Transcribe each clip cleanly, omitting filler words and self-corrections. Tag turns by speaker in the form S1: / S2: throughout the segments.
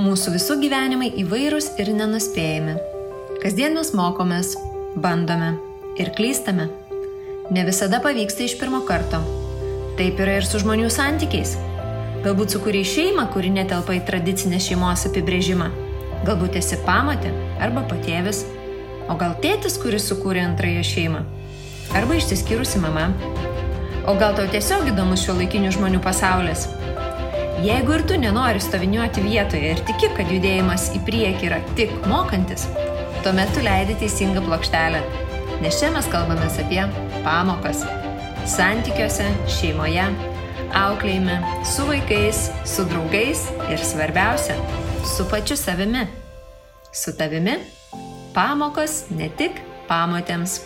S1: Mūsų visų gyvenimai įvairūs ir nenuspėjami. Kasdien mes mokomės, bandome ir klystame. Ne visada pavyksta iš pirmo karto. Taip yra ir su žmonių santykiais. Galbūt sukūrei šeimą, kuri netelpa į tradicinę šeimos apibrėžimą. Galbūt esi pamotė arba patėvis. O gal tėtis, kuris sukūrė antrąją šeimą. Arba išsiskyrusi mama. O gal tau tiesiog įdomus šiuolaikinių žmonių pasaulis. Jeigu ir tu nenori stoviniuoti vietoje ir tiki, kad judėjimas į priekį yra tik mokantis, tuomet tu leidi teisingą plokštelę. Nes čia mes kalbamės apie pamokas. Santykiuose, šeimoje, auklėjime, su vaikais, su draugais ir svarbiausia, su pačiu savimi. Su tavimi pamokos ne tik pamotėms.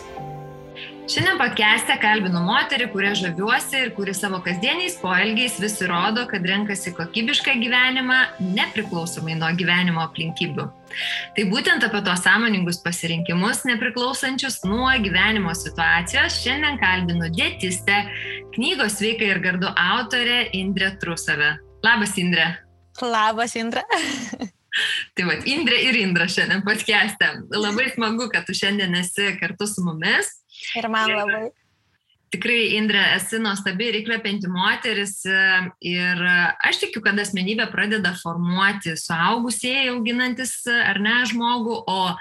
S2: Šiandien podcast'e kalbinu moterį, kuria žaviuosi ir kuri savo kasdieniais poelgiais vis įrodo, kad renkasi kokybišką gyvenimą nepriklausomai nuo gyvenimo aplinkybių. Tai būtent apie tos sąmoningus pasirinkimus nepriklausančius nuo gyvenimo situacijos šiandien kalbinu dietistę, knygos Sveika ir gardu autorę Indrę Trusavę. Labas, Indrė.
S3: Labas, Indra.
S2: Tai vat, Indrė ir Indra šiandien podcast'e. Labai smagu, kad tu šiandien esi kartu su mumis.
S3: Ir man labai.
S2: Tikrai, Indrė, esi nuostabi ir įkvepianti moteris ir aš tikiu, kad asmenybė pradeda formuoti suaugusieji auginantis ar ne žmogų, o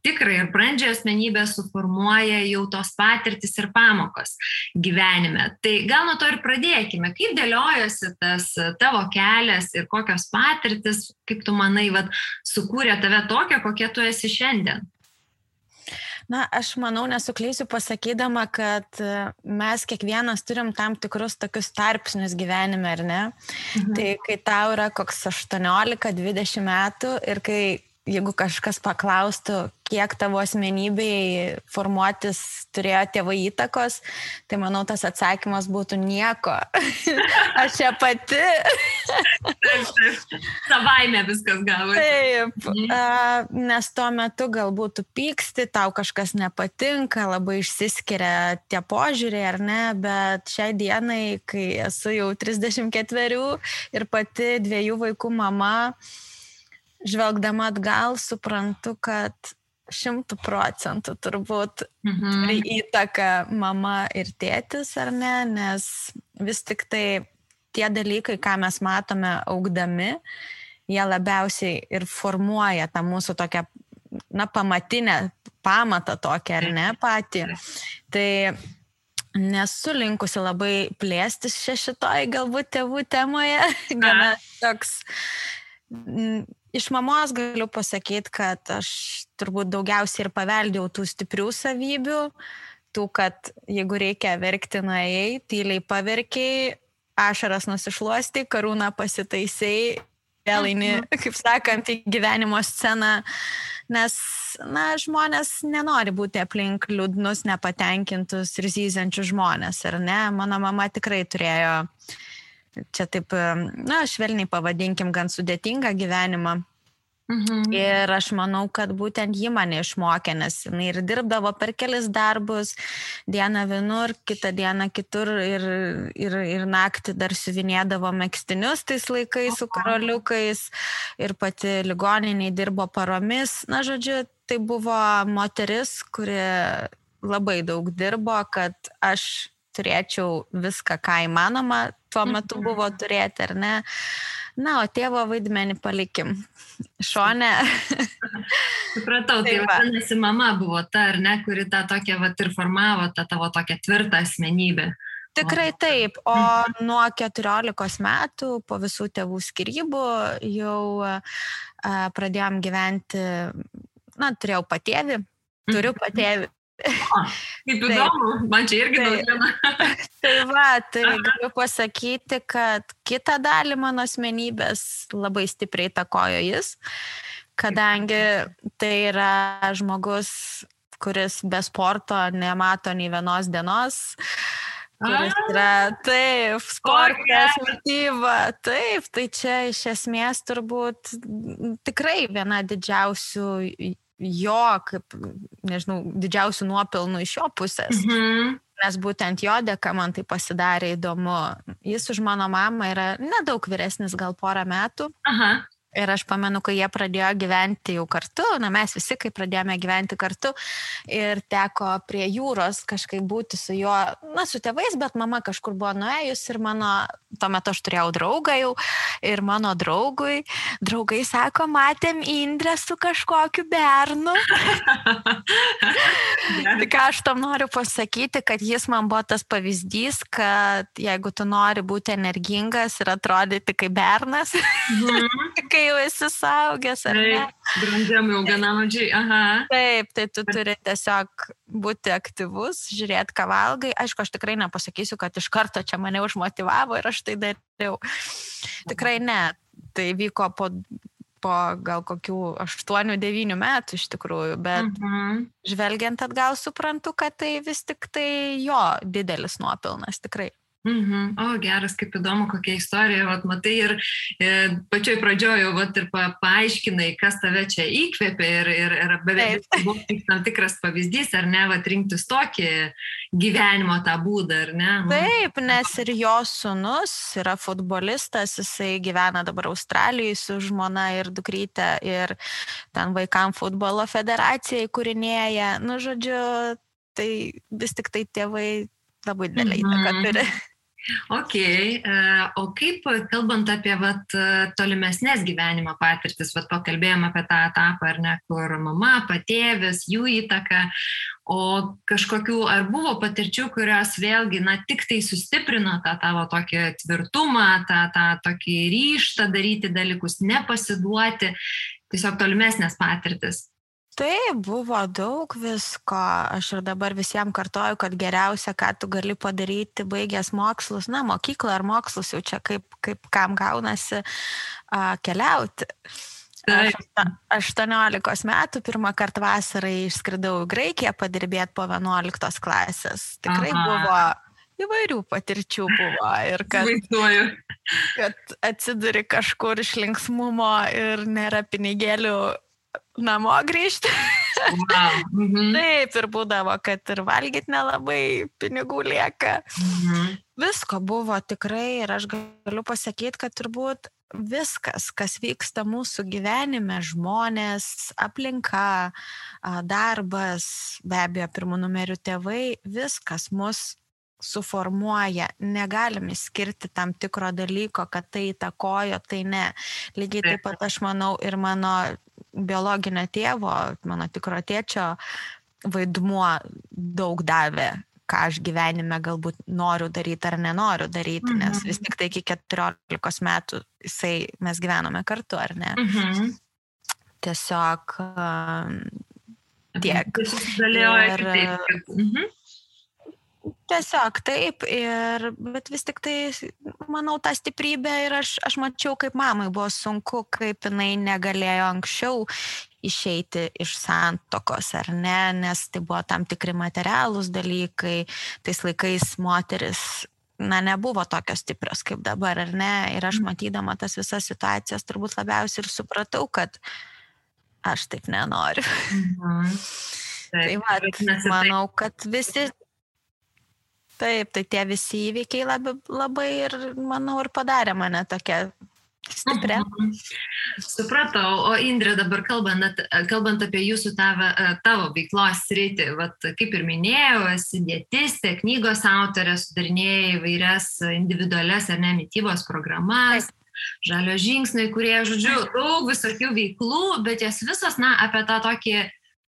S2: tikrai ir brandžią asmenybę suformuoja jau tos patirtis ir pamokos gyvenime. Tai gal nuo to ir pradėkime. Kaip dėliojosi tas tavo kelias ir kokios patirtis, kaip tu manai, sukūrė tave tokią, kokia tu esi šiandien?
S3: Na, aš manau, nesuklysiu pasakydama, kad mes kiekvienas turim tam tikrus tokius tarpsnius gyvenime, ar ne? Tai kai tau yra koks 18-20 metų ir kai, jeigu kažkas paklaustų, kiek tavo asmenybei formuotis turėjo tėvai įtakos, tai manau, tas atsakymas būtų nieko. Aš čia pati.
S2: Savaime viskas gavosi.
S3: Taip, nes tuo metu galbūt tu pyksti, tau kažkas nepatinka, labai išsiskiria tie požiūriai, ar ne, bet šiai dienai, kai esu jau 34 ir pati 2 vaikų mama, žvelgdama atgal, suprantu, kad 100% turbūt turi įtaką mama ir tėtis, ar ne, nes vis tik tai tie dalykai, ką mes matome augdami, jie labiausiai ir formuoja tą mūsų tokią, pamatinę pamatą tokią, ar ne, patį. Tai nesu linkusi labai plėstis šitoj galbūt tėvų temoje, gana toks. Iš mamos galiu pasakyti, kad aš turbūt daugiausiai ir paveldėjau tų stiprių savybių, tų, kad jeigu reikia verkti, nuėjai, tyliai paverkiai, ašaras nusišluostai, karūną pasitaisai, vėl eini, kaip sakant, į gyvenimo sceną, nes, žmonės nenori būti aplink liūdnus, nepatenkintus ir zyziančius žmonės, ar ne? Mano mama tikrai turėjo čia taip, švelniai pavadinkim, gan sudėtingą gyvenimą. Ir aš manau, kad būtent ji mane išmokė, nes jinai ir dirbdavo per kelis darbus, dieną vienur, kitą dieną kitur ir naktį dar siuvinėdavo megztinius tais laikais su karoliukais ir pati ligoniniai dirbo paromis. Na, žodžiu, tai buvo moteris, kuri labai daug dirbo, kad aš turėčiau viską, ką įmanoma tuo metu buvo turėti, ar ne? Na, o tėvo vaidmenį palikim šone.
S2: Supratau, tai vadinasi, mama buvo ta, ar ne, kuri tą tokią ir formavo, tą tavo tokią tvirtą asmenybę.
S3: Tikrai taip, o nuo 14 metų po visų tėvų skyrybų jau pradėjom gyventi, turėjau patėvį, turiu patėvį.
S2: Kaip įdomu, man čia irgi naujiena.
S3: Tai galiu pasakyti, kad kitą dalį mano asmenybės labai stipriai įtakojo jis, kadangi tai yra žmogus, kuris be sporto nemato nei vienos dienos, kuris yra, taip, sportas, mityba, taip, tai čia iš esmės turbūt tikrai viena didžiausių jo, kaip, nežinau, didžiausių nuopelnų iš jo pusės. Nes būtent jo dėka man tai pasidarė įdomu. Jis už mano mamą yra nedaug vyresnis, gal porą metų. Ir aš pamenu, kai jie pradėjo gyventi jau kartu, mes visi, kai pradėjome gyventi kartu ir teko prie jūros kažkaip būti su juo, su tėvais, bet mama kažkur buvo nuėjus ir tuo metu aš turėjau draugą jau ir mano draugai sako, matėm Indrę su kažkokiu bernu. Tai ką aš tam noriu pasakyti, kad jis man buvo tas pavyzdys, kad jeigu tu nori būti energingas ir atrodyti kaip bernas, kai jau esi suaugęs, ar ne?
S2: Brandžiam jau gana mažiai, aha.
S3: Taip, tai tu turi tiesiog būti aktyvus, žiūrėti, ką valgai. Aišku, aš tikrai nepasakysiu, kad iš karto čia mane užmotivavo ir aš tai dariau. Tikrai ne. Tai vyko po gal kokių 8-9 metų iš tikrųjų, bet žvelgiant atgal suprantu, kad tai vis tik tai jo didelis nuopelnas, tikrai.
S2: O, geras, kaip įdomu, kokia istorija, matai, ir pačioj pradžioje ir paaiškinai, kas tave čia įkvėpė ir beveik buvo tam tikras pavyzdys, ar ne, rinktis tokį gyvenimo tą būdą, ar ne?
S3: Taip, nes ir jo sūnus yra futbolistas, jisai gyvena dabar Australijoje su žmona ir dukryte ir ten vaikam futbolo federacija įkūrinėja, žodžiu, tai vis tik tai tėvai labai didelį įtaką turi.
S2: Ok, o kaip, kalbant apie tolimesnės gyvenimo patirtis, pakalbėjom apie tą etapą, ar ne, kur mama, patėvis, jų įtaka, o kažkokių, ar buvo patirčių, kurios vėlgi, tik tai sustiprino tą tavo tokį tvirtumą, tą tokį ryžtą daryti dalykus, nepasiduoti, tiesiog tolimesnės patirtis?
S3: Taip, buvo daug visko. Aš ir dabar visiems kartoju, kad geriausia, ką tu gali padaryti, baigęs mokslus, mokyklą ar mokslus, jau čia kaip kam gaunasi keliauti. Aš 18 metų pirmą kartą vasarai išskridau į Graikiją padirbėti po 11 klasės. Tikrai buvo įvairių patirčių buvo ir kad atsiduri kažkur iš linksmumo ir nėra pinigėlių namo grįžti. Taip, ir būdavo, kad ir valgyti nelabai pinigų lieka. Visko buvo tikrai ir aš galiu pasakyti, kad turbūt viskas, kas vyksta mūsų gyvenime, žmonės, aplinka, darbas, be abejo, pirmų numerių tėvai, viskas mus suformuoja, negalim išskirti tam tikro dalyko, kad tai įtakojo, tai ne. Lygiai taip pat aš manau ir mano biologinio tėvo, mano tikro tėčio vaidmuo daug davė, ką aš gyvenime galbūt noriu daryti ar nenoriu daryti, nes vis tik tai iki 14 metų mes gyvenome kartu, ar ne? Tiesiog tiek. Tiesiog taip, bet vis tik tai, manau, tą stiprybę ir aš mačiau, kaip mamai buvo sunku, kaip jinai negalėjo anksčiau išeiti iš santuokos, ar ne, nes tai buvo tam tikri materialūs dalykai, tais laikais moteris, nebuvo tokios stiprios kaip dabar, ar ne, ir aš matydama tas visas situacijas turbūt labiausiai ir supratau, kad aš taip nenoriu. Tai manau, kad visi... Taip, tai tie visi įvykiai labai ir, manau, ir padarė mane tokia stiprią.
S2: Supratau, o Indrė, dabar kalbant apie jūsų tavo veiklos sritį, kaip ir minėjau, esi dietistė, knygos autorė, sudarinėjai įvairias individualias ar ne mitybos programas, žalio žingsniai, kurie, žodžiu, daug visokių veiklų, bet jas visos, apie tą tokį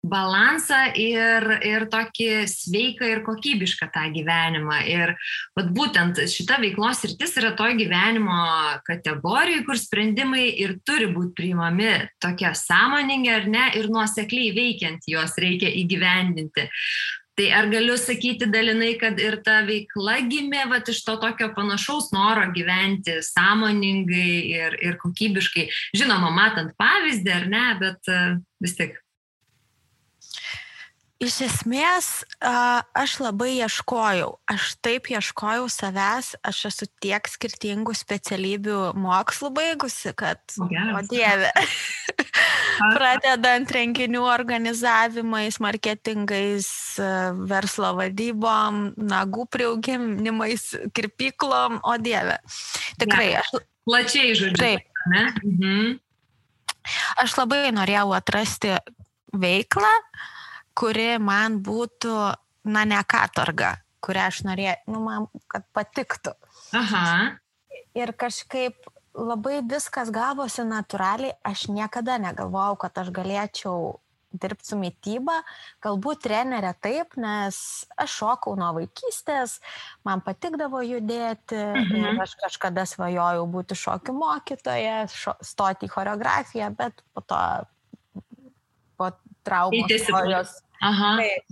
S2: balansą ir tokį sveiką ir kokybišką tą gyvenimą. Ir būtent šita veiklos sritis yra to gyvenimo kategorijų, kur sprendimai ir turi būti priimami tokie sąmoningi ar ne, ir nuosekliai veikiant juos reikia įgyvendinti. Tai ar galiu sakyti dalinai, kad ir ta veikla gimė iš to tokio panašaus noro gyventi sąmoningai ir kokybiškai. Žinoma, matant pavyzdį ar ne, bet vis tik.
S3: Iš esmės, aš labai ieškojau. Aš taip ieškojau savęs, aš esu tiek skirtingų specialybių mokslų baigusi, kad, o Dieve, pradedant renginių organizavimais, marketingais, verslo vadybom, nagų priauginimais, kirpyklom, o Dieve. Tikrai aš...
S2: Plačiai, žodžiu.
S3: Taip. Aš labai norėjau atrasti veiklą, kuri man būtų, ne katorga, kurią aš norėjau, man kad patiktų.
S2: Aha.
S3: Ir kažkaip labai viskas gavosi natūraliai, aš niekada negalvojau, kad aš galėčiau dirbti su mityba, galbūt trenerė taip, nes aš šokau nuo vaikystės, man patikdavo judėti ir aš kažkada svajojau būti šokių mokytoja, stoti į choreografiją, bet po to po traumos istorijos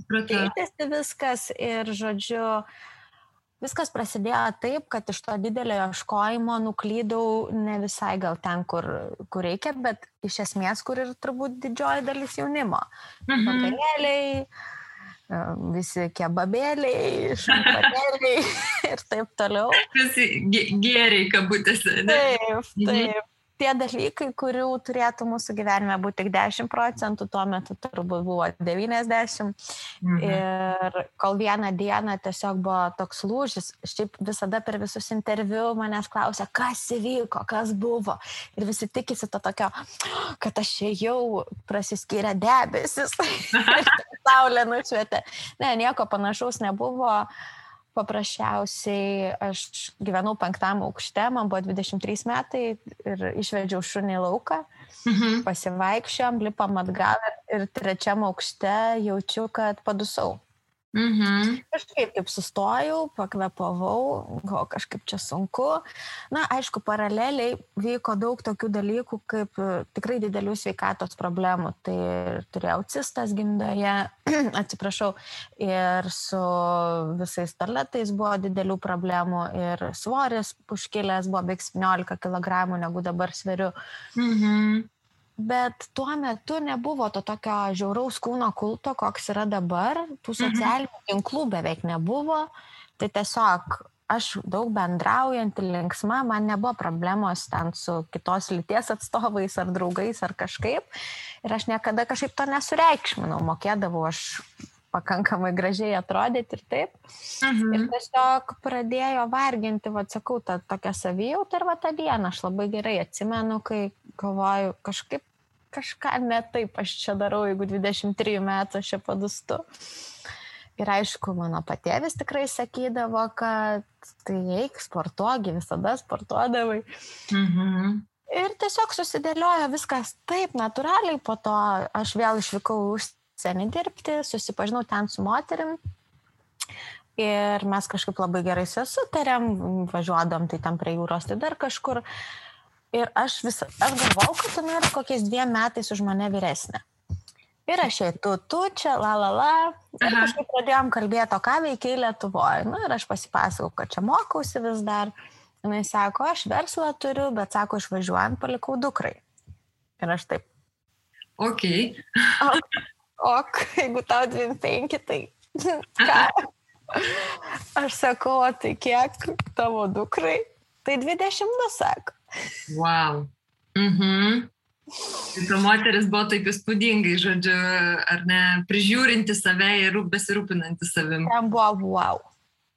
S3: keitėsi viskas ir žodžiu, viskas prasidėjo taip, kad iš to didelio ieškojimo nuklydau ne visai gal ten, kur reikia, bet iš esmės, kur ir turbūt didžioji dalis jaunimo. Vakarėliai, visi kebabėliai, šampanėliai ir taip toliau. Visi
S2: gėriai kabutėse.
S3: Taip. Tie dalykai, kurių turėtų mūsų gyvenime būti tik 10%, tuo metu turbūt buvo 90%. Ir kol vieną dieną tiesiog buvo toks lūžis, šiaip visada per visus interviu manęs klausia, kas įvyko, kas buvo. Ir visi tikisi to tokio, kad aš jau prasiskyrė debesis ir saulė nušvietė. Ne, nieko panašaus nebuvo. Paprasčiausiai aš gyvenau 5. aukšte, man buvo 23 metai ir išvedžiau šunį į lauką, pasivaikščiom, lipam atgal ir 3. aukšte jaučiu, kad padusau. Kažkaip taip sustojau, pakvėpavau, kažkaip čia sunku. Aišku, paraleliai vyko daug tokių dalykų, kaip tikrai didelių sveikatos problemų. Tai turėjau cistas gimdoje, atsiprašau, ir su visais starletais buvo didelių problemų ir svoris užkilęs buvo beveik 17 kg, negu dabar sveriu. Bet tuo metu nebuvo to tokio žiauraus kūno kulto, koks yra dabar. Tų socialinių tinklų beveik nebuvo. Tai tiesiog aš daug bendraujant, linksma, man nebuvo problemos ten su kitos lyties atstovais ar draugais ar kažkaip. Ir aš niekada kažkaip to nesureikšminau. Mokėdavau aš pakankamai gražiai atrodyti ir taip. Ir tiesiog pradėjo varginti, sakau, tą tokią savijautą ir tą dieną. Aš labai gerai atsimenu, kai galvoju, kažką ne taip aš čia darau, jeigu 23 metų aš čia padustu. Ir aišku, mano patėvis tikrai sakydavo, kad tai eik, sportuogi, visada sportuodavai. Ir tiesiog susidėliojo viskas taip natūraliai, po to aš vėl išvykau užsienį dirbti, susipažinau ten su moterim. Ir mes kažkaip labai gerai sutarėm, važiuodom tai ten prie jūros, tai dar kažkur. Ir aš galvau, kad tu nori kokiais 2 metais už mane vyresnė. Ir aš tu čia, Ir kažkaip pradėjom kalbėti, o ką veikiai Lietuvoje. Ir aš pasipasakau, kad čia mokausi vis dar. Jis sako, aš verslą turiu, bet sako, išvažiuojant palikau dukrai. Ir aš taip.
S2: Ok.
S3: Jeigu tau 25, tai ką? Aš sakau, tai kiek tavo dukrai? Tai 22, sako.
S2: Wow. Ta moteris buvo taip įspūdingai, žodžiu, ar ne, prižiūrinti save ir besirūpinanti savim.
S3: Ten buvo wow.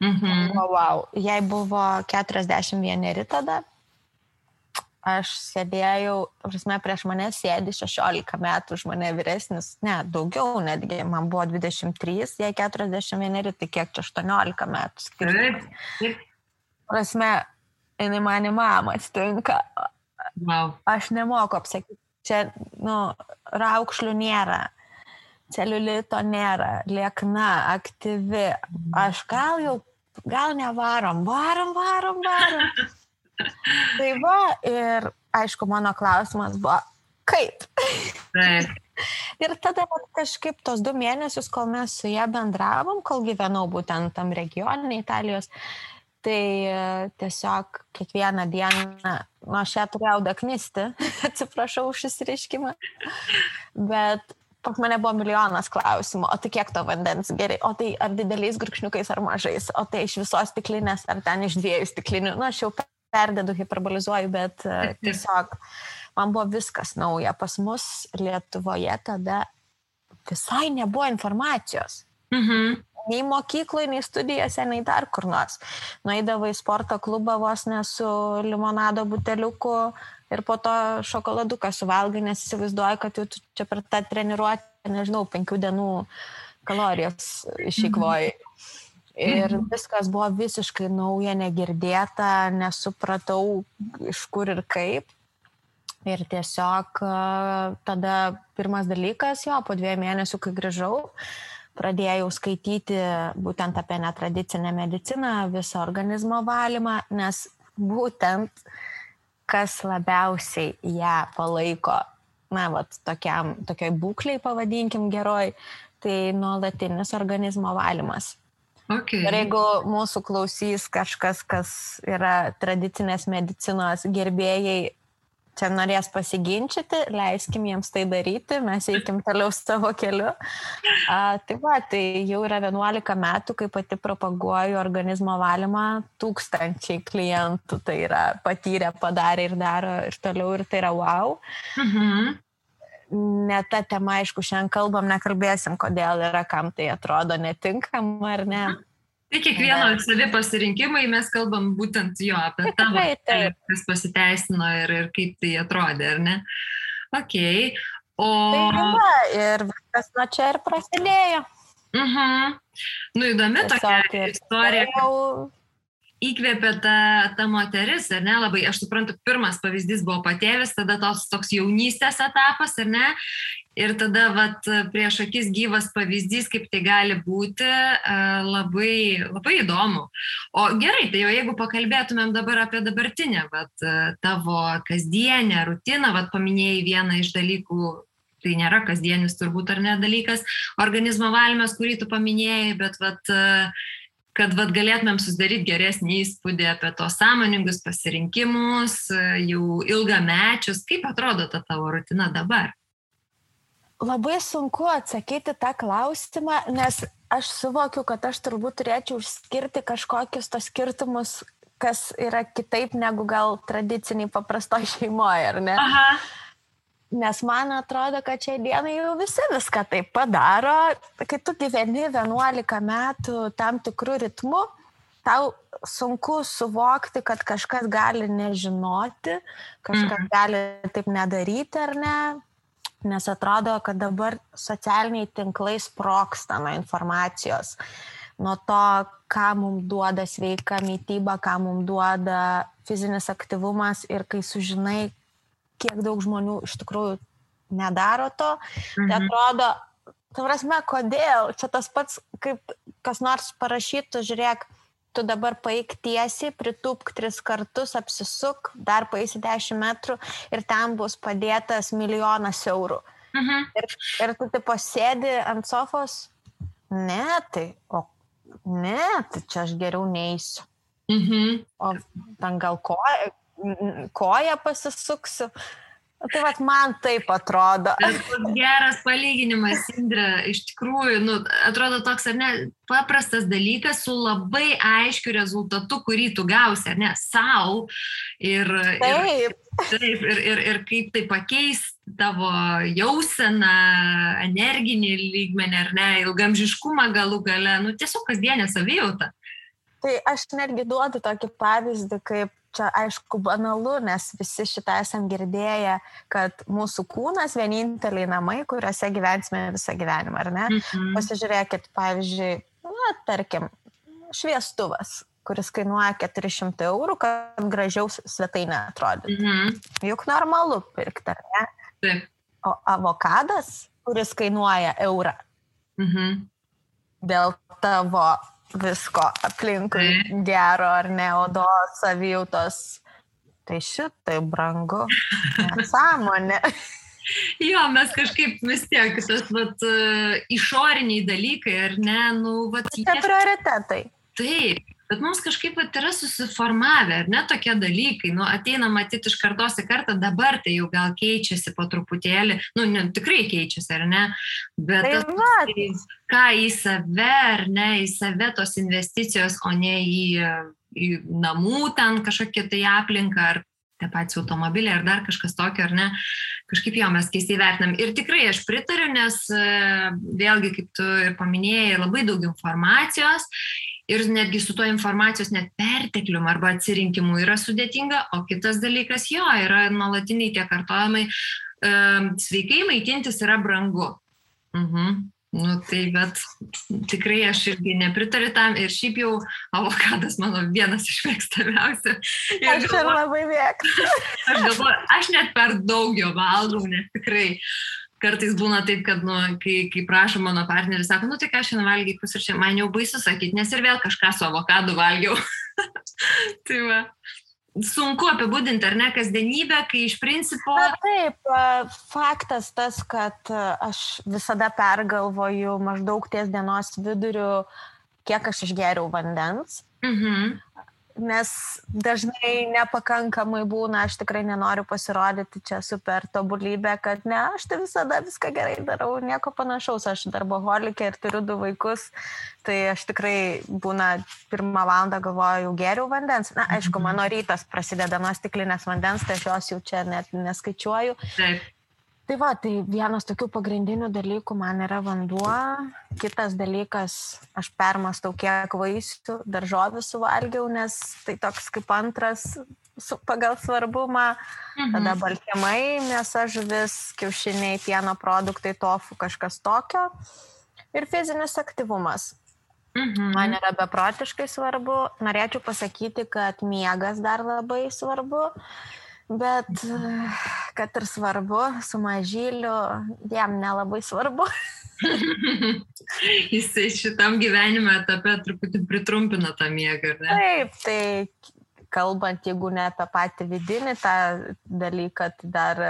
S3: Wow. Jai buvo 41 tada. Aš sėdėjau, prieš mane sėdi 16 metų, už mane vyresnis, ne, daugiau netgi, man buvo 23, jai 41, tai kiek čia 18 metų.
S2: Taip.
S3: Prasme, jinai mane mama atsitinka.
S2: Wow.
S3: Aš nemoku apsakyti. Čia, raukšlių nėra, celiulito nėra, liekna, aktyvi. Aš gal nevarom, varom. Tai va, ir aišku, mano klausimas buvo, kaip?
S2: Taip.
S3: Ir tada kažkaip tos 2 mėnesius, kol mes su ją bendravom, kol gyvenau būtent tam regione Italijos, tai tiesiog kiekvieną dieną, aš ją turėjau daknisti, atsiprašau už išsireiškimą, bet pas mane buvo milijonas klausimų, o tai kiek to vandens gerai, o tai ar dideliais gurkšniukais ar mažais, o tai iš visos stiklinės ar ten iš 2 stiklinių, aš jau perdedu, hiperbolizuoju, bet tiesiog man buvo viskas nauja. Pas mus Lietuvoje tada visai nebuvo informacijos. nei mokykloje, nei studijose, nei dar kur nors. Nueidavai į sporto klubą vos ne su limonado buteliuku ir po to šokoladuką suvalgai, nes įsivaizduoji, kad jau čia per tą treniruotę, nežinau, 5 dienų kalorijas išeikvoji. Ir viskas buvo visiškai nauja, negirdėta, nesupratau iš kur ir kaip. Ir tiesiog tada pirmas dalykas, po 2 mėnesių, kai grįžau, pradėjau skaityti būtent apie netradicinę mediciną, visą organizmo valymą, nes būtent kas labiausiai ją palaiko, tokiai būkliai, pavadinkim geroj, tai nuolatinis organizmo valymas.
S2: Okay.
S3: Ir jeigu mūsų klausys kažkas, kas yra tradicinės medicinos gerbėjai, čia norės pasiginčyti, leiskim jiems tai daryti, mes eikim toliau savo keliu. Tai jau yra 11 metų, kai pati propaguoju organizmo valymą, 1000 klientų tai yra patyrę, padarė ir daro ir toliau, ir tai yra wow. Ne ta tema, aišku, šiandien kalbam, nekalbėsim, kodėl yra, kam tai atrodo netinkama ar ne.
S2: Tai kiekvieno savi pasirinkimai, mes kalbam būtent apie tavo, kas pasiteisino ir kaip tai atrodė, ar ne? Okay.
S3: Ir viskas nuo čia ir prasidėjo.
S2: Įdomi tokia istorija. Įkvėpė ta moteris, ar ne? Labai, aš suprantu, pirmas pavyzdys buvo patėvis, tada toks jaunystės etapas, ar ne? Ir tada prieš akis gyvas pavyzdys, kaip tai gali būti, labai, labai įdomu. O gerai, tai jau jeigu pakalbėtumėm dabar apie dabartinę, tavo kasdienę rutiną, paminėjai vieną iš dalykų, tai nėra kasdienis turbūt ar ne dalykas, organizmo valymas, kurį tu paminėjai, bet kad galėtumėm susidaryti geresnį įspūdį apie tos sąmoningus pasirinkimus, jau ilgamečius. Kaip atrodo ta tavo rutina dabar?
S3: Labai sunku atsakyti tą klausimą, nes aš suvokiu, kad aš turbūt turėčiau išskirti kažkokius tos skirtumus, kas yra kitaip negu gal tradiciniai paprastoj šeimoje, ar ne?
S2: Aha.
S3: Nes man atrodo, kad šiai dienai jau visi viską taip padaro. Kai tu gyveni 11 metų tam tikrų ritmų, tau sunku suvokti, kad kažkas gali nežinoti, kažkas gali taip nedaryti ar ne. Nes atrodo, kad dabar socialiniai tinklai sprogsta nuo informacijos. Nuo to, ką mums duoda sveika mityba, ką mums duoda fizinis aktyvumas ir kai sužinai, kiek daug žmonių iš tikrųjų nedaro to, tai atrodo, kodėl? Čia tas pats, kaip kas nors parašytų, žiūrėk, tu dabar paeik tiesiai, pritūpk 3 kartus, apsisuk, dar paeisi 10 metrų ir ten bus padėtas 1 milijonas eurų. Ir tu taip pasėdi ant sofos, tai čia aš geriau neisiu. O ten gal koją pasisuksiu. Tai man taip atrodo.
S2: Geras palyginimas, Indre, iš tikrųjų, atrodo toks, ar ne, paprastas dalykas su labai aiškiu rezultatu, kurį tu gausi, ar ne, sau. Ir kaip tai pakeis tavo jauseną, energinį lygmenį, ar ne, ilgamžiškumą galų gale, tiesiog kasdienę savijautą.
S3: Tai aš netgi duodu tokį pavyzdį, kaip čia aišku banalu, nes visi šitą esam girdėję, kad mūsų kūnas vieninteliai namai, kuriuose gyvensime visą gyvenimą, ar ne? Pasižiūrėkit, pavyzdžiui, tarkim, šviestuvas, kuris kainuoja 400 eurų, kad gražiau svetainė atrodytų. Juk normalu pirkti, ar ne?
S2: Taip.
S3: O avokadas, kuris kainuoja eurą, dėl tavo visko aplinkui gero ar ne, odos, savijautos, tai šitai brangu, nesąmonė.
S2: Jo, mes kažkaip vis tiek, tas išoriniai dalykai, ar ne,
S3: Tai prioritetai.
S2: Taip, bet mums kažkaip yra susiformavę, ar ne, tokie dalykai, ateina matyti iš kartos į kartą, dabar tai jau gal keičiasi po truputėlį, tikrai keičiasi, ar ne, bet ką į save, ar ne, į save tos investicijos, o ne į namų ten kažkokią tai aplinką, ar tie patys automobiliai, ar dar kažkas tokio, ar ne, kažkaip jo mes keistai vertinam. Ir tikrai aš pritariu, nes vėlgi, kaip tu ir paminėjai, labai daug informacijos ir netgi su to informacijos net perteklium arba atsirinkimu yra sudėtinga, o kitas dalykas jo, yra nuolatiniai tie kartojimai, sveikai maitintis yra brangu. Nu tai, bet tikrai aš irgi nepritariu tam ir šiaip jau avokadas mano vienas iš mėgstamiausių.
S3: Aš ir labai mėgstu.
S2: Aš galvoju, aš net per daug jo valgau, nes tikrai kartais būna taip, kad, kai prašo mano partneris, sako, tai ką šiandien valgiai pusryčiam, man jau baisu sakyti, nes ir vėl kažką su avokadu valgiau. Tai va. Sunku apibūdinti, ar ne, kasdienybę, kai iš principo...
S3: Na, taip, faktas tas, kad aš visada pergalvoju maždaug ties dienos viduriu, kiek aš išgeriau vandens. Nes dažnai nepakankamai būna, aš tikrai nenoriu pasirodyti čia super tobulybė, kad ne, aš tai visada viską gerai darau, nieko panašaus, aš darboholikė ir turiu 2 vaikus, tai aš tikrai būna 1 valandą galvoju, jau geriau vandens. Na, aišku, mano rytas prasideda nuo stiklinės vandens, tai aš jos jau čia net neskaičiuoju.
S2: Taip.
S3: Tai va, tai vienas tokių pagrindinių dalykų man yra vanduo, kitas dalykas, aš permastau, kiek vaisių, daržovių suvalgiau, nes tai toks kaip antras pagal svarbumą, tada baltymai, mėsa, žuvis, kiaušiniai, pieno produktai, tofu, kažkas tokio ir fizinis aktyvumas. Man yra beprotiškai svarbu, norėčiau pasakyti, kad miegas dar labai svarbu. Bet, kad ir svarbu, su mažyliu, jam nelabai svarbu.
S2: Jisai šitam gyvenime etape truputį pritrumpina tą miegą, ar ne?
S3: Taip, tai kalbant, jeigu ne apie patį vidinį tą dalyką, tai dar,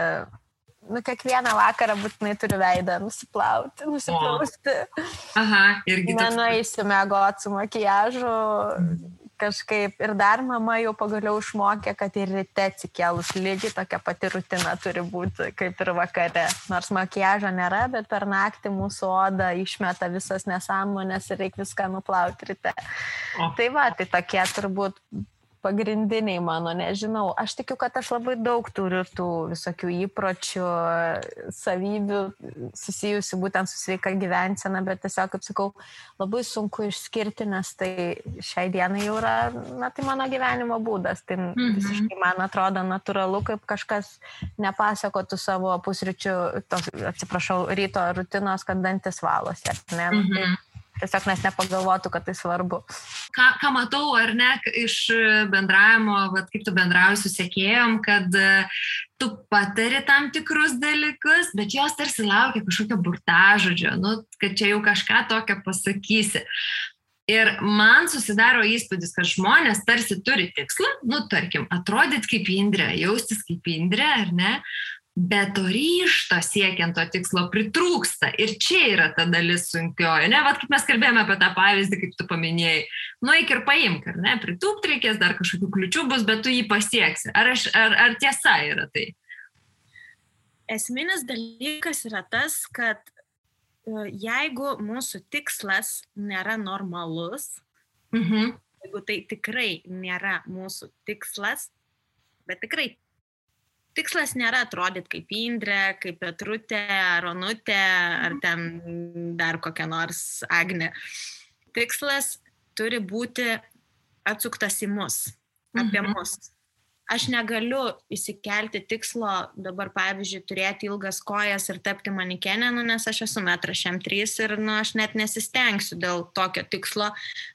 S3: kiekvieną vakarą būtinai turiu veidą nusiplausti.
S2: Aha, irgi toks.
S3: Nenueisiu miegoti su makiažu. Kažkaip ir dar mama jau pagaliau išmokė, kad ir ryte atsikėlus lygiai tokia pati rutina turi būti kaip ir vakare. Nors makiažo nėra, bet per naktį mūsų oda išmeta visas nesąmonės ir reikia viską nuplauti ryte. Tai va, tai tokie turbūt pagrindiniai mano, nežinau. Aš tikiu, kad aš labai daug turiu tų visokių įpročių, savybių susijusių būtent su sveika gyvensena, bet tiesiog, kaip sakau, labai sunku išskirti, nes tai šiai dienai jau yra, tai mano gyvenimo būdas. Tai visiškai man atrodo natūralu, kaip kažkas nepasakotų savo pusryčių, ryto rutinos, kad dantis valosi. Ne? Tiesiog nes nepagalvotų, kad tai svarbu.
S2: Ką matau, ar ne, iš bendravimo, kaip tu bendrauji su sekėjom, kad tu patari tam tikrus dalykus, bet jos tarsi laukia kažkokio burtažodžio, kad čia jau kažką tokio pasakysi. Ir man susidaro įspūdis, kad žmonės tarsi turi tikslą, tarkim, atrodyti kaip Indrė, jaustis kaip Indrė, ar ne? Bet to ryžto siekiant to tikslo pritrūksta. Ir čia yra ta dalis sunkioji. Ne, kaip mes kalbėjome apie tą pavyzdį, kaip tu paminėjai. Eik ir paimk, ar ne? Pritūpt reikės, dar kažkokių kliučių bus, bet tu jį pasieksi. Ar tiesa yra tai?
S3: Esminis dalykas yra tas, kad jeigu mūsų tikslas nėra normalus, jeigu tai tikrai nėra mūsų tikslas, bet tikrai tikslas nėra atrodyti kaip Indrė, kaip Petrutė, ar Onutė, ar ten dar kokia nors Agnė. Tikslas turi būti atsuktas į mus, apie mus. Aš negaliu įsikelti tikslo dabar, pavyzdžiui, turėti ilgas kojas ir tapti manikenę, nes aš esu 1,3 ir aš net nesistengsiu dėl tokio tikslo,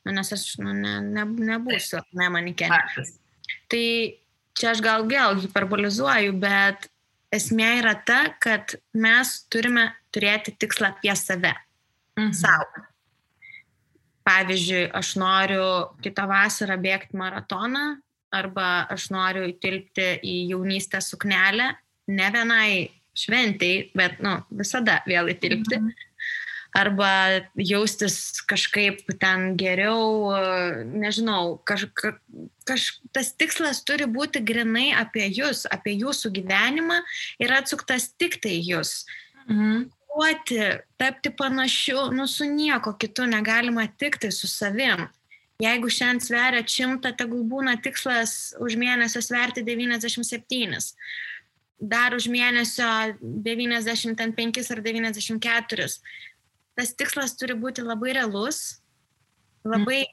S3: nes aš nebūsiu manikenė. Tai čia aš gal vėl hiperbolizuoju, bet esmė yra ta, kad mes turime turėti tikslą apie save, savo. Pavyzdžiui, aš noriu kitą vasarą bėgti maratoną, arba aš noriu įtilpti į jaunystę suknelę, ne vienai šventei, bet visada vėl įtilpti. Arba jaustis kažkaip ten geriau, nežinau, tas tikslas turi būti grinai apie jūs, apie jūsų gyvenimą ir atsuktas tik tai jūs. Tapti panašiu, su nieko kitu negalima tik tai su savim. Jeigu šiandien sveria 100, tegul būna tikslas už mėnesio sverti 97. dar už mėnesio 95 ar 94. Tas tikslas turi būti labai realus, labai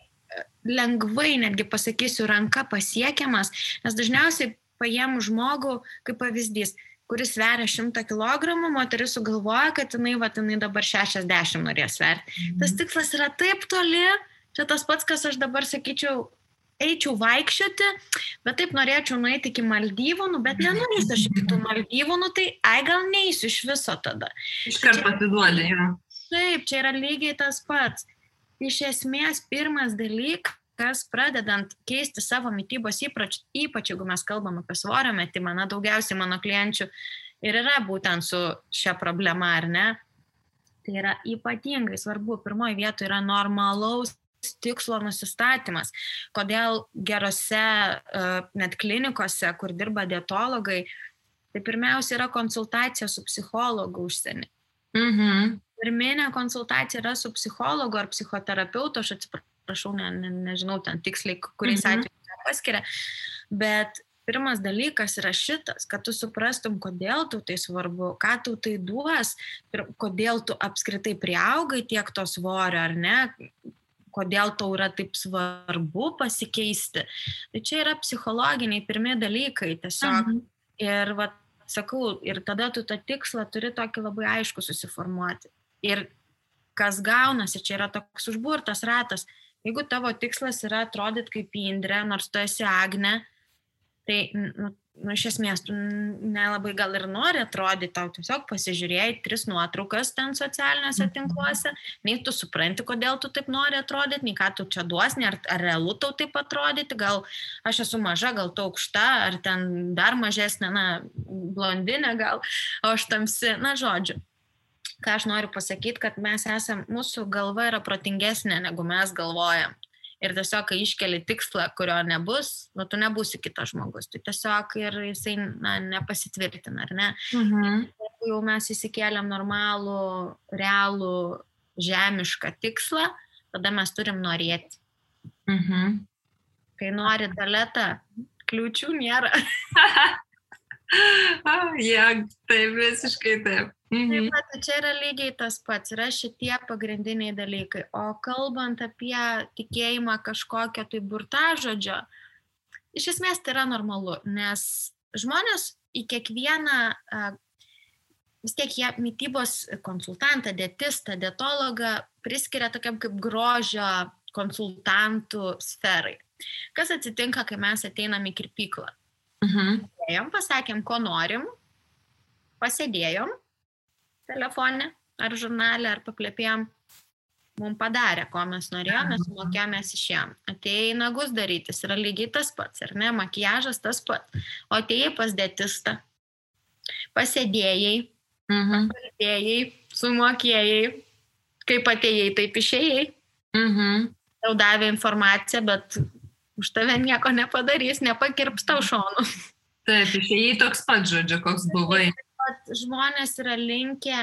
S3: lengvai, netgi pasakysiu, ranka pasiekiamas, nes dažniausiai paėmų žmogų, kaip pavyzdys, kuris sveria 100 kg, moteris sugalvoja, kad jinai dabar 60 norės sverti. Tas tikslas yra taip toli, čia tas pats, kas aš dabar sakyčiau, eičiau vaikščioti, bet taip norėčiau nueiti iki Maldyvų, bet nenorėsiu aš iki tų Maldyvų, tai gal neįsiu iš viso tada.
S2: Iškart pasiduodė, jo.
S3: Taip, čia yra lygiai tas pats. Iš esmės, pirmas dalykas, pradedant keisti savo mitybos įpročius, ypač jeigu mes kalbam apie svorio metimą, daugiausiai mano klienčių ir yra būtent su šia problema, ar ne? Tai yra ypatingai svarbu. Pirmoje vietoje yra normalaus tikslo nusistatymas. Kodėl gerose net klinikose, kur dirba dietologai, tai pirmiausia yra konsultacija su psichologu užsienį. Pirminė konsultacija yra su psichologu ar psichoterapeutu, aš atsiprašau, nežinau ten tiksliai, kuriais atvejais paskiria, bet pirmas dalykas yra šitas, kad tu suprastum, kodėl tau tai svarbu, ką tau tai duos, kodėl tu apskritai priaugai tiek to svorio, ar ne, kodėl tau yra taip svarbu pasikeisti. Tai čia yra psichologiniai pirmi dalykai tiesiog. Ir sakau, ir tada tu tą tikslą turi tokį labai aišku susiformuoti. Ir kas gaunasi, čia yra toks užburtas ratas. Jeigu tavo tikslas yra atrodyti kaip Indrė, nors tu esi Agnė, tai iš esmės tu nelabai gal ir nori atrodyti, tau tiesiog pasižiūrėjai 3 nuotraukas ten socialiniuose tinkluose, nei tu supranti, kodėl tu taip nori atrodyti, nei ką tu čia duosni, ar realu tau taip atrodyti, gal aš esu maža, gal tu aukšta, ar ten dar mažesnė, blondinė gal, o aš tamsi, žodžiu. Ką aš noriu pasakyti, kad mūsų galva yra protingesnė, negu mes galvojam. Ir tiesiog, kai iškeli tikslą, kurio nebus, tu nebūsi kitas žmogus. Tai tiesiog ir jisai nepasitvirtina, ar ne? Jeigu jau mes įsikėlėm normalų, realų, žemišką tikslą, tada mes turim norėti. Kai nori Daleta, kliūčių nėra.
S2: Taip, visiškai taip.
S3: Taip pat, čia yra lygiai tas pats, yra šitie pagrindiniai dalykai. O kalbant apie tikėjimą kažkokio tai burtažodžio, iš esmės tai yra normalu, nes žmonės į kiekvieną, vis tiek jie mitybos konsultantą, dietistą, dietologą priskiria tokiam kaip grožio konsultantų sferai. Kas atsitinka, kai mes ateinam į kirpyklą? Pasakėm, ko norim, pasėdėjom telefone, ar žurnale, ar paplėpėjom, mums padarė, ko mes norėjom, mes sumokėjom, mes išėjom. Atėjai nagus darytis, yra lygiai tas pats, ar ne, makiažas tas pats. O atėjai pas dietistą, pasėdėjai, pakalbėjai, sumokėjai, kaip atėjai, taip išėjai. Tau davė informaciją, bet už tave nieko nepadarys, nepakirps tau šonų.
S2: Taip, išėjai toks pat, žodžiu, koks buvai.
S3: Žmonės yra linkę,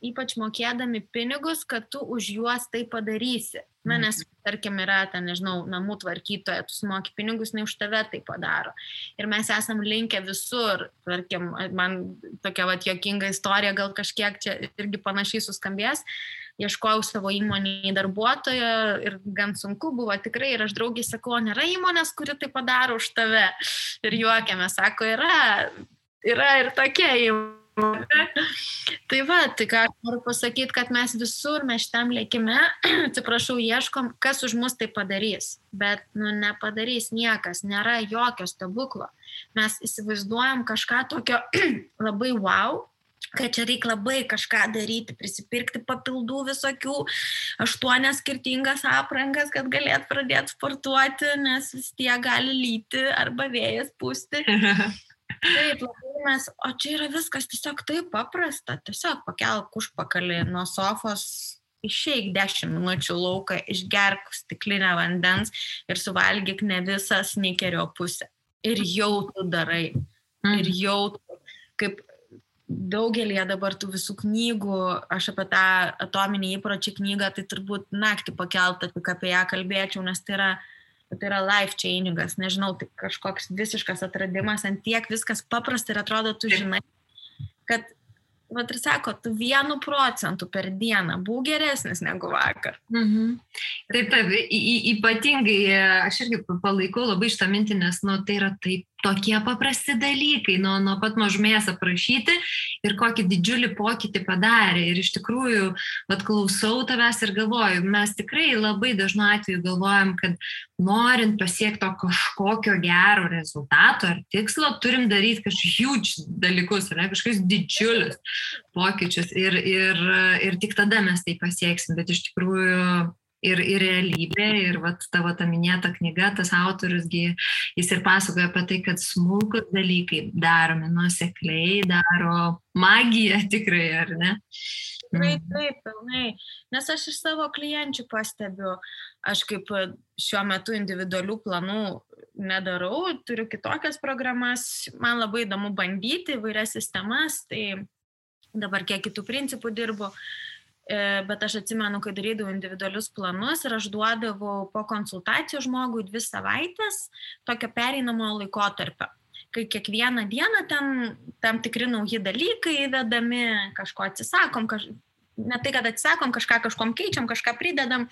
S3: ypač mokėdami pinigus, kad tu už juos tai padarysi. Nes, tarkim, yra, namų tvarkytoja, tu sumoki pinigus, ne už tave tai padaro. Ir mes esam linkę visur, tarkim, man tokia juokinga istorija, gal kažkiek čia irgi panašiai suskambės. Ieškojau savo įmonėje darbuotojo ir gan sunku buvo tikrai. Ir aš draugiai sakau, nėra įmonės, kuri tai padaro už tave. Ir juokiame, sako, yra ir tokia įmonė. Tai tai ką aš noriu pasakyti, kad mes visur, mes šitam lėkime, atsiprašau, ieškom, kas už mus tai padarys. Bet nepadarys niekas, nėra jokio stebuklo. Mes įsivaizduojam kažką tokio labai wow, kad čia reikia labai kažką daryti, prisipirkti papildų visokių, 8 skirtingas aprangas, kad galėt pradėti sportuoti, nes vis tiek gali lyti arba vėjas pūsti. Taip, labai o čia yra viskas tiesiog taip paprasta, tiesiog pakelk užpakalį nuo sofos, išeik 10 minučių lauką, išgerk stiklinę vandens ir suvalgyk ne visą snikerio pusę. Ir jau tu darai. Ir jau kaip daugelį dabar tų visų knygų, aš apie tą atominį įpročių knygą, tai turbūt naktį pakeltą, tik apie ją kalbėčiau, nes tai yra Tai yra life changingas, nežinau, tai kažkoks visiškas atradimas, ant tiek viskas paprasta ir atrodo, tu žinai, kad, vat ir sako, tu 1% per dieną būk geresnis negu vakar.
S2: Taip, ypatingai aš irgi palaikau labai šitą mintį, nes tai yra taip tokie paprasti dalykai, nuo pat mažumės aprašyti ir kokį didžiulį pokytį padarė. Ir iš tikrųjų, klausau tavęs ir galvoju, mes tikrai labai dažnu atveju galvojam, kad norint pasiekti kažkokio gero rezultato ar tikslo, turim daryti kažkokius huge dalykus, kažkokius didžiulius pokyčius ir tik tada mes tai pasieksim. Bet iš tikrųjų ir realybė, ir tavo ta minėta knyga, tas autorius, jis ir pasakoja apie tai, kad smulkus dalykai daromi nuosekliai, daro magiją tikrai, ar ne?
S3: Taip, pilnai. Nes aš iš savo klienčių pastebiu, aš kaip šiuo metu individualių planų nedarau, turiu kitokias programas, man labai įdomu bandyti įvairias sistemas, tai dabar kiek kitų principų dirbu. Bet aš atsimenu, kai darydavau individualius planus ir aš duodavau po konsultacijų žmogui 2 savaitės tokio pereinamojo laikotarpio, kai kiekvieną dieną tam tikri nauji dalykai įvedami, kažko atsisakom, ne tai, kad atsisakom, kažkom keičiam, kažką pridedam.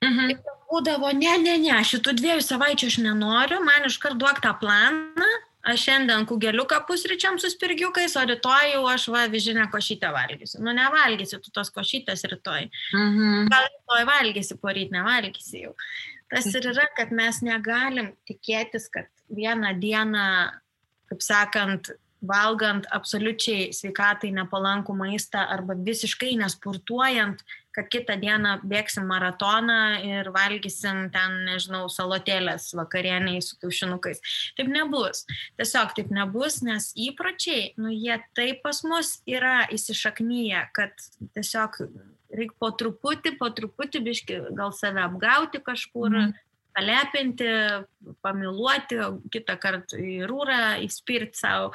S3: Ir būdavo, ne, šitų 2 savaičių aš nenoriu, man iškart duok tą planą. Aš šiandien kugeliuką pusryčiam su spirgiukais, o rytoj jau aš vyžinę košytę valgysiu. Nevalgysi tu tos košytės rytoj. Gal rytoj valgysi, poryt nevalgysi jau. Tas ir yra, kad mes negalim tikėtis, kad vieną dieną, kaip sakant, valgant absoliučiai sveikatai nepalankų maistą arba visiškai nesportuojant, kad kitą dieną bėgsim maratoną ir valgysim ten, nežinau, salotėlės vakarieniai su kiaušinukais. Taip nebus. Tiesiog taip nebus, nes įpročiai, jie taip pas mus yra įsišaknyję, kad tiesiog reikia po truputį biškį gal save apgauti kažkur, palepinti, pamiluoti, kitą kartą į rūrą, įspirti savo.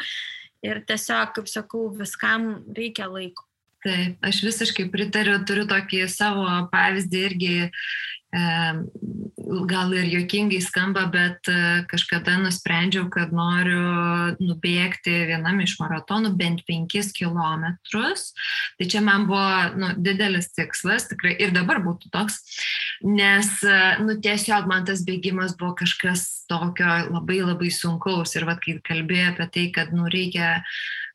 S3: Ir tiesiog, kaip sakau, viskam reikia laiko.
S2: Taip, aš visiškai pritariu, turiu tokį savo pavyzdį irgi, gal ir juokingai skamba, bet kažkada nusprendžiau, kad noriu nubėgti vienam iš maratonų bent 5 kilometrus. Tai čia man buvo didelis tikslas, tikrai ir dabar būtų toks, nes tiesiog man tas bėgimas buvo kažkas tokio labai labai sunkaus. Ir kai kalbėjau apie tai, kad reikia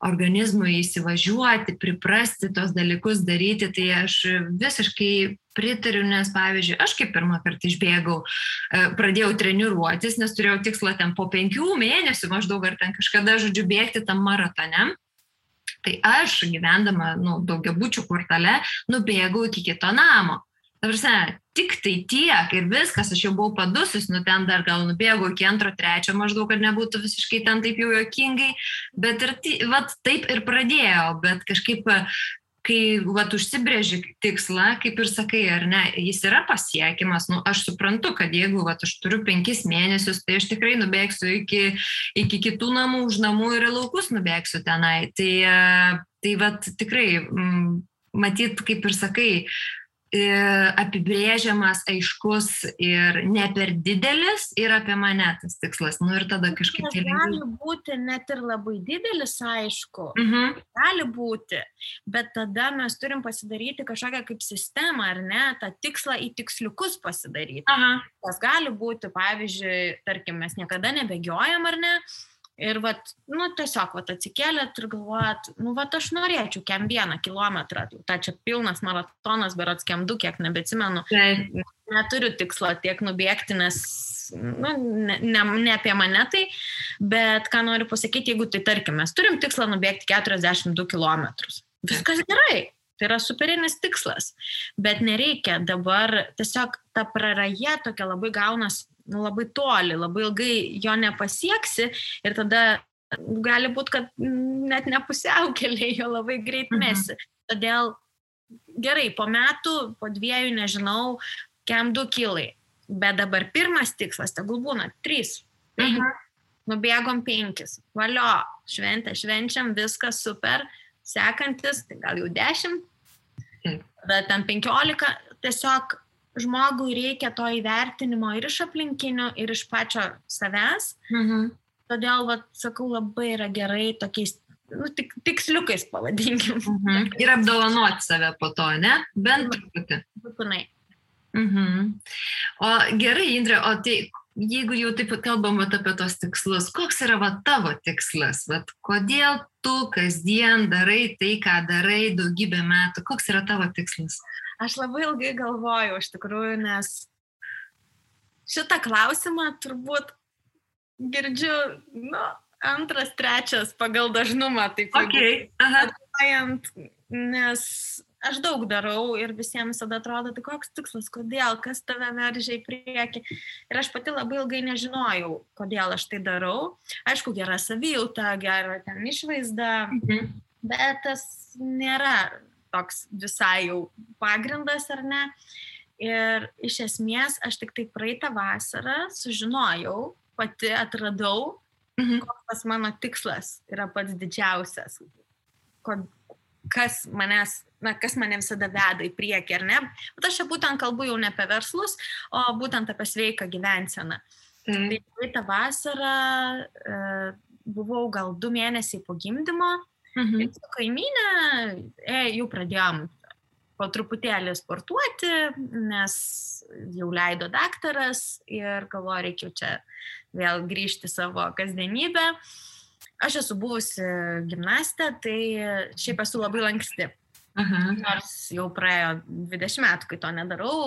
S2: organizmui įsivažiuoti, priprasti tos dalykus daryti, tai aš visiškai pritariu, nes pavyzdžiui, aš kaip pirmą kartą išbėgau, pradėjau treniruotis, nes turėjau tikslą ten po 5 mėnesių maždaug ar ten kažkada, žodžiu, bėgti tam maratone. Tai aš gyvendama daugiabučių kvartale nubėgau iki kito namo. Tik tai tiek ir viskas, aš jau buvau padusus, ten dar gal nubėgau iki 2-3 maždaug, kad nebūtų visiškai ten taip jau juokingai, bet ir taip ir pradėjau, bet kažkaip, kai užsibrėži tikslą, kaip ir sakai, ar ne, jis yra pasiekimas, aš suprantu, kad jeigu aš turiu 5 mėnesius, tai aš tikrai nubėgsiu iki kitų namų, už namų ir laukus nubėgsiu tenai, tai tikrai, matyt, kaip ir sakai, apibrėžiamas, aiškus ir ne per didelis ir apie mane tas tikslas. Ir tada kažkaip...
S3: Gali būti net ir labai didelis, aišku. Gali būti, bet tada mes turim pasidaryti kažkokią kaip sistemą, ar ne, tą tikslą į tiksliukus pasidaryti. Tas gali būti, pavyzdžiui, tarkim, mes niekada nebėgiojam, ar ne? Ir tiesiog atsikėlėt ir galvojat, aš norėčiau kem 1 kilometrą, tai čia pilnas maratonas, berods kem 2, kiek nebeatsimenu, neturiu tikslo tiek nubėgti, nes ne apie mane tai, bet ką noriu pasakyti, jeigu tai tarkim, mes turim tikslą nubėgti 42 kilometrus, viskas gerai. Tai yra superinis tikslas, bet nereikia dabar tiesiog ta praraja tokia labai gaunas labai toli, labai ilgai jo nepasieksi ir tada gali būti, kad net nepusiaukeliai jo labai greit mesi. Todėl gerai, po metų, po 2, nežinau, kem 2 kilai, bet dabar pirmas tikslas, tegul būna 3, 5, nubėgom 5, valio, švenčiam, viskas super, sekantis, tai gal jau 10, tada ten 15, tiesiog žmogui reikia to įvertinimo ir iš aplinkinių, ir iš pačio savęs. Todėl, sakau, labai yra gerai tokiais tiksliukais pavadinkim.
S2: Ir apdovanoti save po to, ne? Bent truputį.
S3: Būtinai.
S2: O gerai, Indre, o tai jeigu jau taip kalbam apie tos tikslus, koks yra tavo tikslas? Kodėl tu kasdien darai tai, ką darai daugybę metų? Koks yra tavo tikslas?
S3: Aš labai ilgai galvojau, iš tikrųjų, nes šitą klausimą turbūt girdžiu, antras, trečias pagal dažnumą, taip atvažiuojant, nes aš daug darau ir visiems visada atrodo, tai koks tikslas, kodėl, kas tave veržia į priekį. Ir aš pati labai ilgai nežinojau, kodėl aš tai darau. Aišku, gera savijauta, gera ten išvaizda, bet tas nėra toks visai jau pagrindas, ar ne. Ir iš esmės aš tik tai praeitą vasarą sužinojau, pati atradau, koks mano tikslas yra pats didžiausias. Kas mane visada veda į priekį, ar ne? Bet aš čia būtent kalbu jau ne apie verslus, o būtent apie sveiką gyvenseną. Tai praeitą vasarą buvau gal 2 mėnesiai po gimdymo ir su kaimynė jau pradėjom po truputėlį sportuoti, nes jau leido daktaras ir galvoju, reikia čia vėl grįžti savo kasdienybę. Aš esu buvusi gimnastė, tai šiaip esu labai lanksti. Nors jau praėjo 20 metų, kai to nedarau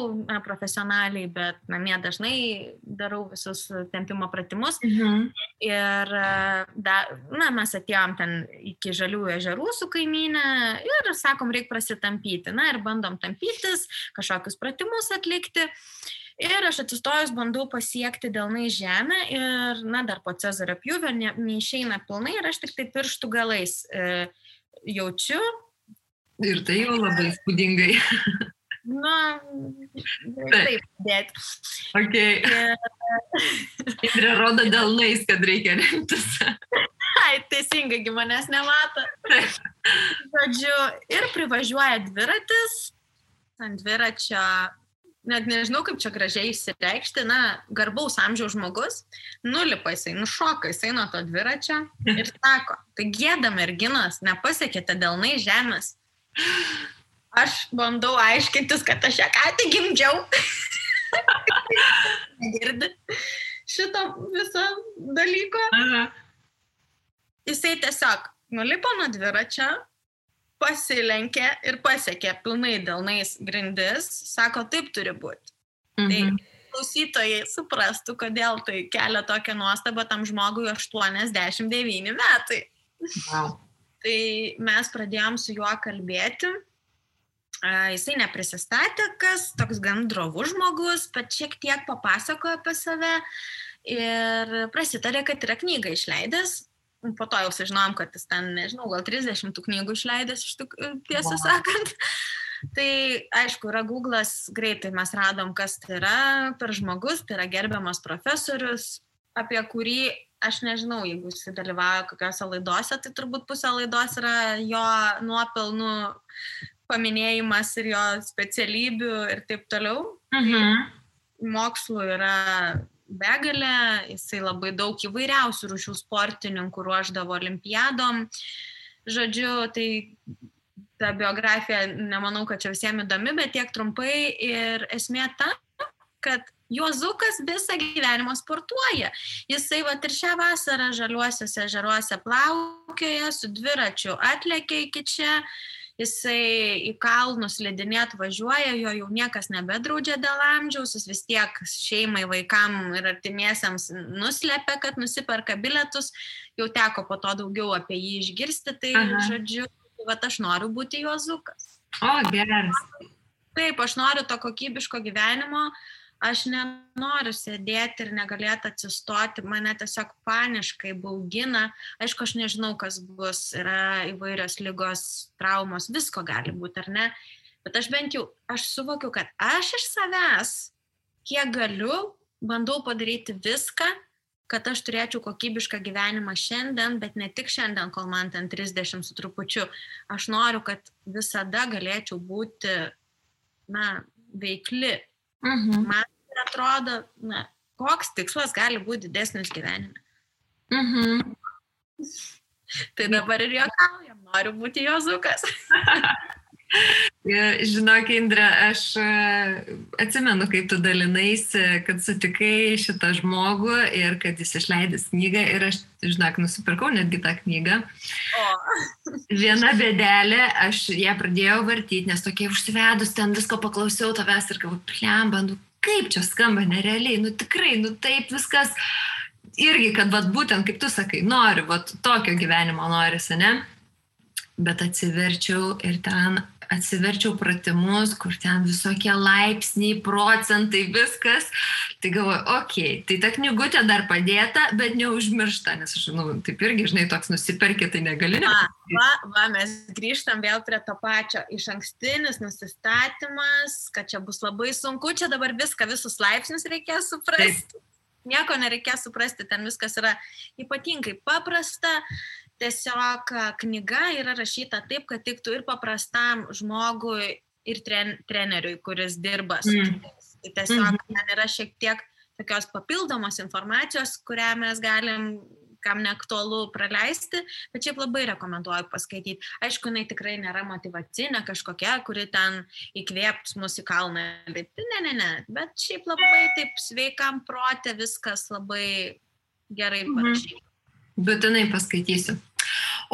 S3: profesionaliai, bet namie dažnai darau visus tempimo pratimus. Ir mes atėjom ten iki Žaliųjų ežerų su kaimynė ir sakom, reikia prasitampyti. Ir bandom tampytis, kažkokius pratimus atlikti. Ir aš atsistojus bandau pasiekti delnai žemę ir, dar po Cezario pjūvio neišeina pilnai ir aš tik tai pirštų galais jaučiu.
S2: Ir tai jau labai spūdingai.
S3: Taip, bet.
S2: Indrė rodo delnais, kad reikia remtis.
S3: Teisingai, manęs nemato. Žodžiu, ir privažiuoja dviratis ant dviračio. Net nežinau, kaip čia gražiai išsireikšti, garbaus amžiaus žmogus, nulipa jisai, nušoka jisai nuo to dviračio ir sako, tai gėda merginos, nepasiekėte delnai žemės. Aš bandau aiškintis, kad aš ją ką tik gimdžiau. Negirdi šito viso dalyko. Jisai tiesiog nulipo nuo dviračio, pasilenkė ir pasiekė pilnai delnais grindis, sako, taip turi būti. Tai klausytojai suprastų, kodėl tai kelia tokią nuostabą tam žmogui 89 metai. Tai mes pradėjom su juo kalbėti. Jisai neprisistatė, kas toks gan drovus žmogus, bet šiek tiek papasakojo apie save ir prasitarė, kad yra knygą išleidęs. Po to jau sužinojom, kad jis ten, nežinau, gal 30 knygų išleidęs, tiesą sakant. Tai, aišku, yra Google'as, greitai mes radom, kas tai yra per žmogus, tai yra gerbiamas profesorius, apie kurį, aš nežinau, jeigu jis dalyvauja kokiose laidose, tai turbūt pusė laidos yra jo nuopelnų paminėjimas ir jo specialybių ir taip toliau. Mokslų yra begalė, jisai labai daug įvairiausių rūšių sportininkų ruošdavo olimpiadom. Žodžiu, tai ta biografija, nemanau, kad čia visiems įdomi, bet tiek trumpai ir esmė ta, kad Juozukas visą gyvenimą sportuoja. Jisai ir šią vasarą Žaliuosiuose ežeruose plaukioja, su dviračiu atlėkė iki čia. Jisai į kalnus slidinėt važiuoja, jo jau niekas nebedraudžia dėl amžiaus, jis vis tiek šeimai, vaikam ir artimiesiems nuslepia, kad nusiperka bilietus, jau teko po to daugiau apie jį išgirsti, tai žodžiu, aš noriu būti Juozukas.
S2: O, geras.
S3: Taip, aš noriu to kokybiško gyvenimo, aš nenoriu sėdėti ir negalėti atsistoti, mane tiesiog paniškai baugina. Aišku, aš nežinau, kas bus, yra įvairios ligos, traumos, visko gali būti, ar ne? Bet aš bent jau, aš suvokiu, kad aš iš savęs, kiek galiu, bandau padaryti viską, kad aš turėčiau kokybišką gyvenimą šiandien, bet ne tik šiandien, kol man ten 30 su trupučiu. Aš noriu, kad visada galėčiau būti, veikli. Man atrodo, koks tikslas gali būti didesnis gyvenime. Tai dabar ir juokaujam, noriu būti Jozukas.
S2: Žinok, Indre, aš atsimenu, kaip tu dalinaisi, kad sutikai šitą žmogų ir kad jis išleidęs knygą ir aš, žinok, nusipirkau netgi tą knygą. Viena bėdelė, aš ją pradėjau vartyti, nes tokie užsivedus ten visko paklausiau tavęs ir galvoju, plemba, kaip čia skamba nerealiai, tikrai, taip viskas. Irgi, kad būtent, kaip tu sakai, noriu, tokio gyvenimo norisi, ne? Bet atsiverčiau ir ten atsiverčiau pratimus, kur ten visokie laipsniai, procentai, viskas. Tai galvoju, okei, tai ta knygutė dar padėta, bet neužmiršta, nes aš, taip irgi, žinai, toks nusiperki, tai negali.
S3: Mes grįžtam vėl prie to pačio. Išankstinis nusistatymas, kad čia bus labai sunku, čia dabar visus laipsnius reikės suprasti. Taip. Nieko nereikės suprasti, ten viskas yra ypatingai paprasta. Tiesiog knyga yra rašyta taip, kad tiktų ir paprastam žmogui, ir treneriui, kuris dirba su jais. Tai tiesiog ten yra šiek tiek tokios papildomos informacijos, kurią mes galim, kam neaktualu, praleisti, bet šiaip labai rekomenduoju paskaityti. Aišku, jinai tikrai nėra motyvacinė kažkokia, kuri ten įkvėps mus į kalną. Ne, bet šiaip labai taip sveikam prote viskas labai gerai parašyta.
S2: Būtinai paskaitysiu.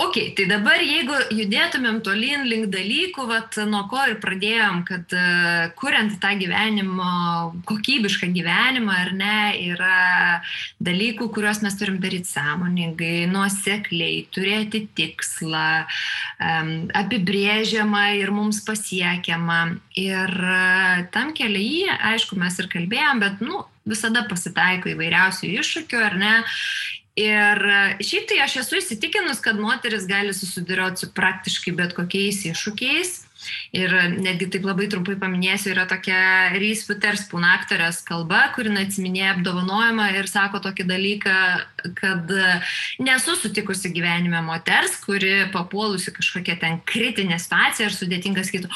S2: Ok, tai dabar jeigu judėtumėm tolyn link dalykų, nuo ko ir pradėjom, kad kuriant tą gyvenimo, kokybišką gyvenimą, ar ne, yra dalykų, kuriuos mes turim daryti sąmoningai, nuosekliai, turėti tikslą, apibrėžiamą ir mums pasiekiamą. Ir tam kelyje, aišku, mes ir kalbėjom, bet visada pasitaiko įvairiausių iššūkių, ar ne. Ir šiaip tai aš esu įsitikinus, kad moteris gali susiduroti su praktiškai bet kokiais iššūkiais. Ir netgi taip labai trumpai paminėsiu, yra tokia Reese Witherspoon aktorės kalba, kuri atsiminėja apdovanojimą ir sako tokį dalyką, kad nesu sutikusi gyvenime moters, kuri papuolusi kažkokia ten kritinė situacija ir sudėtinga sakytų,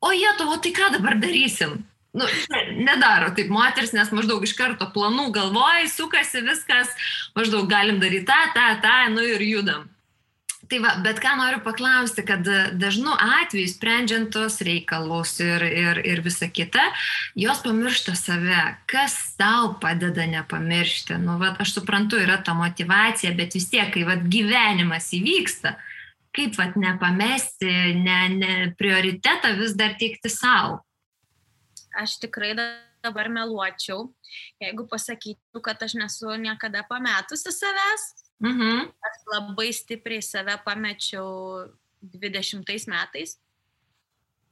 S2: o Lietuvo, tai ką dabar darysim? Nedaro taip moteris, nes maždaug iš karto planų galvoj, sukasi viskas, maždaug galim daryti tą, ir judam. Tai bet ką noriu paklausti, kad dažnu atveju sprendžiant tos reikalus ir visa kita, jos pamiršta save. Kas tau padeda nepamiršti? Aš suprantu, yra ta motyvacija, bet vis tiek, kai gyvenimas įvyksta, kaip nepamesti, prioritetą vis dar teikti savo.
S3: Aš tikrai dabar meluočiau, jeigu pasakyčiau, kad aš nesu niekada pametusi savęs. Aš labai stipriai save pamečiau 20 metais.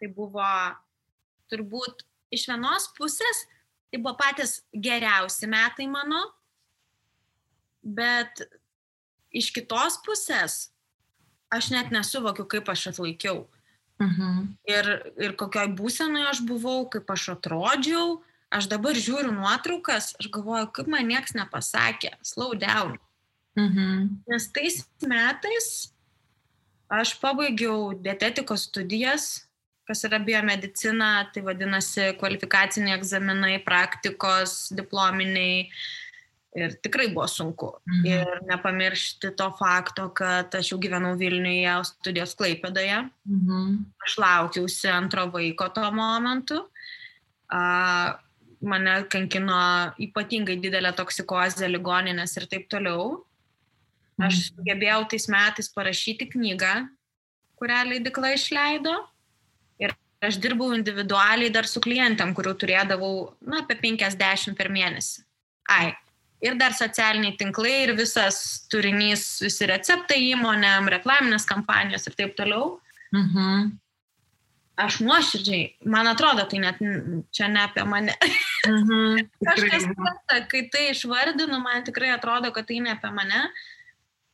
S3: Tai buvo turbūt iš vienos pusės, tai buvo patys geriausi metai mano, bet iš kitos pusės aš net nesuvokiu, kaip aš atlaikiau. Ir kokioj būsenoje aš buvau, kaip aš atrodžiau. Aš dabar žiūriu nuotraukas, aš galvoju, kaip man nieks nepasakė, slow down. Nes tais metais aš pabaigiau dietetikos studijas, kas yra biomedicina, tai vadinasi kvalifikaciniai egzaminai, praktikos, diplominiai. Ir tikrai buvo sunku. Ir nepamiršti to fakto, kad aš jau gyvenau Vilniuje, studijos Klaipėdoje. Aš laukiausi antro vaiko tuo momentu. Mane kankino ypatingai didelė toksikozė, ligoninės ir taip toliau. Aš sugebėjau tais metais parašyti knygą, kurią leidykla išleido. Ir aš dirbau individualiai dar su klientėm, kurių turėdavau apie 50 per mėnesį. Ir dar socialiniai tinklai ir visas turinys, visi receptai įmonėm, reklaminės kampanijos ir taip toliau. Aš nuoširdžiai, man atrodo, tai net čia ne apie mane. Kažkas prasta, kai tai išvardinu, man tikrai atrodo, kad tai ne apie mane.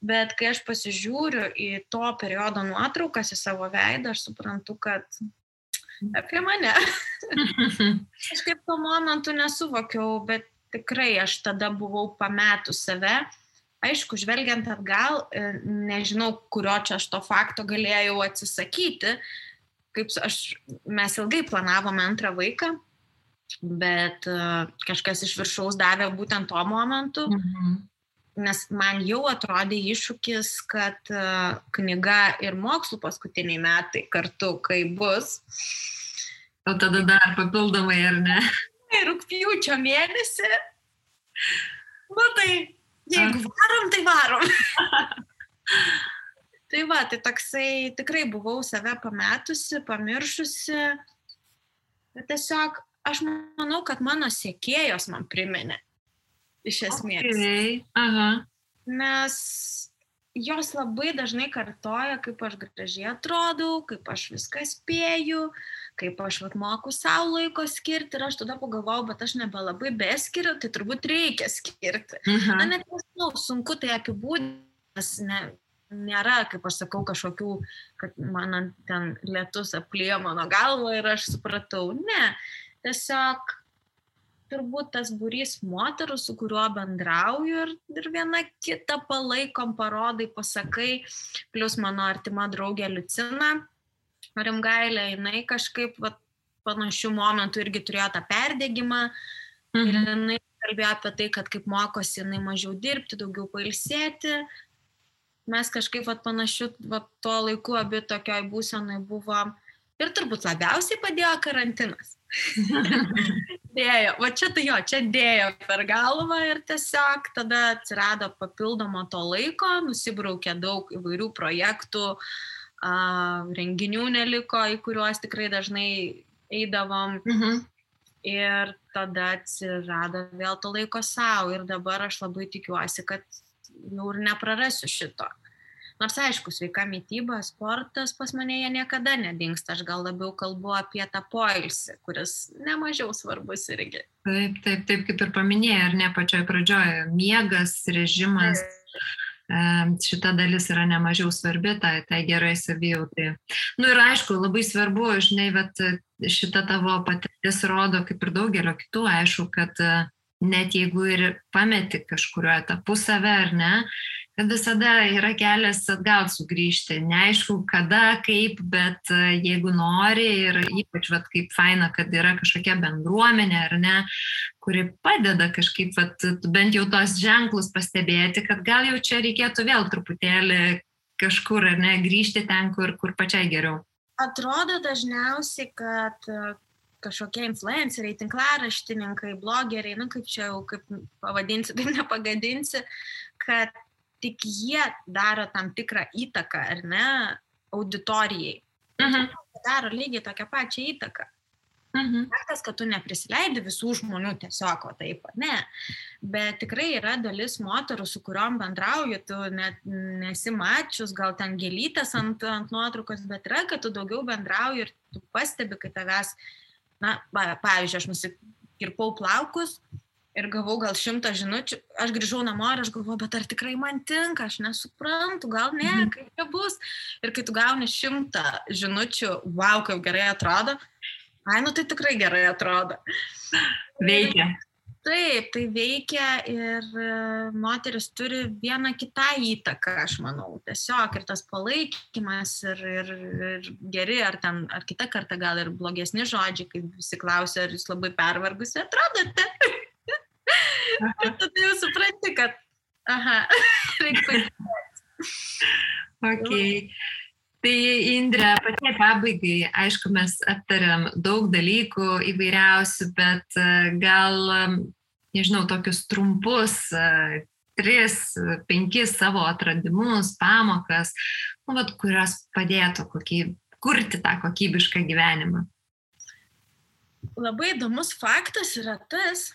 S3: Bet kai aš pasižiūriu į to periodo nuotraukas, į savo veidą, aš suprantu, kad apie mane. Aš kaip tuo momentu nesuvokiau, bet tikrai aš tada buvau pametus save. Aišku, žvelgiant atgal, nežinau, kurio čia aš to fakto galėjau atsisakyti. Mes ilgai planavome antrą vaiką bet kažkas iš viršaus davė būtent tuo momentu, nes man jau atrodė iššūkis, kad knyga ir mokslų paskutiniai metai kartu, kai bus.
S2: O tada dar papildomai, ar ne?
S3: Rugpjūčio mėnesį. Nu tai, jeigu varom, tai varom. Tai va, tai toksai tikrai buvau save pametusi, pamiršusi. Bet tiesiog aš manau, kad mano sekėjos man priminė. Iš esmės.
S2: Okay. Aha.
S3: Nes jos labai dažnai kartoja, kaip aš gražiai atrodau, kaip aš viską spėju, kaip aš moku savo laiko skirti. Ir aš tada pagalvojau, bet aš nebelabai beskiriu, tai turbūt reikia skirti. Na, net nežinau, sunku tai apibūdinti, nes nėra, kaip aš sakau, kažkokių, kad man ten lietus apliejo mano galvą ir aš supratau. Ne, tiesiog turbūt tas būrys moterų, su kuriuo bendrauju ir viena kitą palaikom, parodai, pasakai, plus mano artima draugė Liucina Rimgailė, jinai kažkaip panašių momentų irgi turėjo tą perdegimą ir jinai kalbėjo apie tai, kad kaip mokosi jinai mažiau dirbti, daugiau pailsėti. Mes kažkaip panašių tuo laiku abi tokioj būsenai buvom ir turbūt labiausiai padėjo karantinas. Dėjo, čia dėjo per galvą ir tiesiog tada atsirado papildomo to laiko, nusibraukė daug įvairių projektų, renginių neliko, į kuriuos tikrai dažnai eidavom ir tada atsirado vėl to laiko savo ir dabar aš labai tikiuosi, kad jau ir neprarasiu šito. Nors aišku, sveika mityba, sportas pas mane jie niekada nedingsta, aš gal labiau kalbu apie tą poilsį, kuris nemažiau svarbus irgi.
S2: Taip, kaip ir paminėjai, ar ne pačioj pradžioje, miegas, režimas, šita dalis yra nemažiau svarbi, tai gerai savijautai. Nu ir aišku, labai svarbu, žinai, šita tavo patirtis rodo, kaip ir daugelio kitų, aišku, kad net jeigu ir pameti kažkurio etapu save, ar ne, kad visada yra kelias atgal sugrįžti. Neaišku, kada, kaip, bet jeigu nori ir ypač kaip faina, kad yra kažkokia bendruomenė, ar ne, kuri padeda kažkaip bent jau tos ženklus pastebėti, kad gal jau čia reikėtų vėl truputėlį kažkur, ar ne, grįžti ten, kur pačiai geriau.
S3: Atrodo dažniausiai, kad kažkokie influenceriai, tinklaraštininkai, blogeriai, kaip čia jau, kaip pavadinsi, taip nepagadinsi, kad tik jie daro tam tikrą įtaką, ar ne, auditorijai. Daro lygiai tokią pačią įtaką. Faktas, kad tu neprisileidi visų žmonių tiesiog, taip, ne. Bet tikrai yra dalis moterų, su kuriuom bendrauju, tu net nesi mačius, gal ten gėlytės ant nuotraukos, bet yra, kad tu daugiau bendrauji ir tu pastebi, kai tavęs, pavyzdžiui, aš nusikirpau plaukus ir gavau gal 100 žinučių, aš grįžau namo ir aš galvoju, bet ar tikrai man tinka, aš nesuprantu, gal ne, kaip čia bus. Ir kai tu gauni 100 žinučių, wow, kaip gerai atrodo, tai tikrai gerai atrodo.
S2: Veikia.
S3: Taip, tai veikia ir moteris turi vieną kitą įtaką, aš manau. Tiesiog ir tas palaikymas ir geri, ar kitą kartą gal ir blogesni žodžiai, kaip visi klausia, ar jūs labai pervargusi atrodote. Ir tada jau supranti, kad reikia patikėti.
S2: Okay. Tai Indre, pačiai pabaigai, aišku, mes aptariam daug dalykų įvairiausių, bet gal, nežinau, tokius trumpus 3-5 savo atradimus, pamokas, kurios padėtų kurti tą kokybišką gyvenimą.
S3: Labai įdomus faktas yra tas,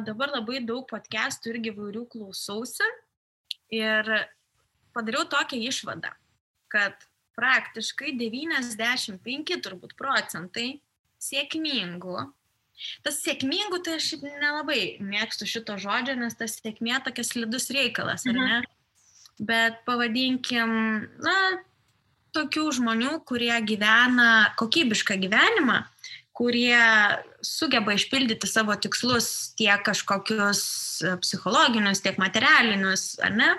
S3: dabar labai daug podcastų irgi įvairių klausausi ir padariau tokią išvadą, kad praktiškai 95 turbūt procentai sėkmingų. Tas sėkmingų, tai aš nelabai mėgstu šito žodžio, nes tas sėkmė tokia slidus reikalas, ar ne? Bet pavadinkim, tokių žmonių, kurie gyvena kokybišką gyvenimą, kurie sugeba išpildyti savo tikslus tiek kažkokius psichologinius, tiek materialinius, ar ne?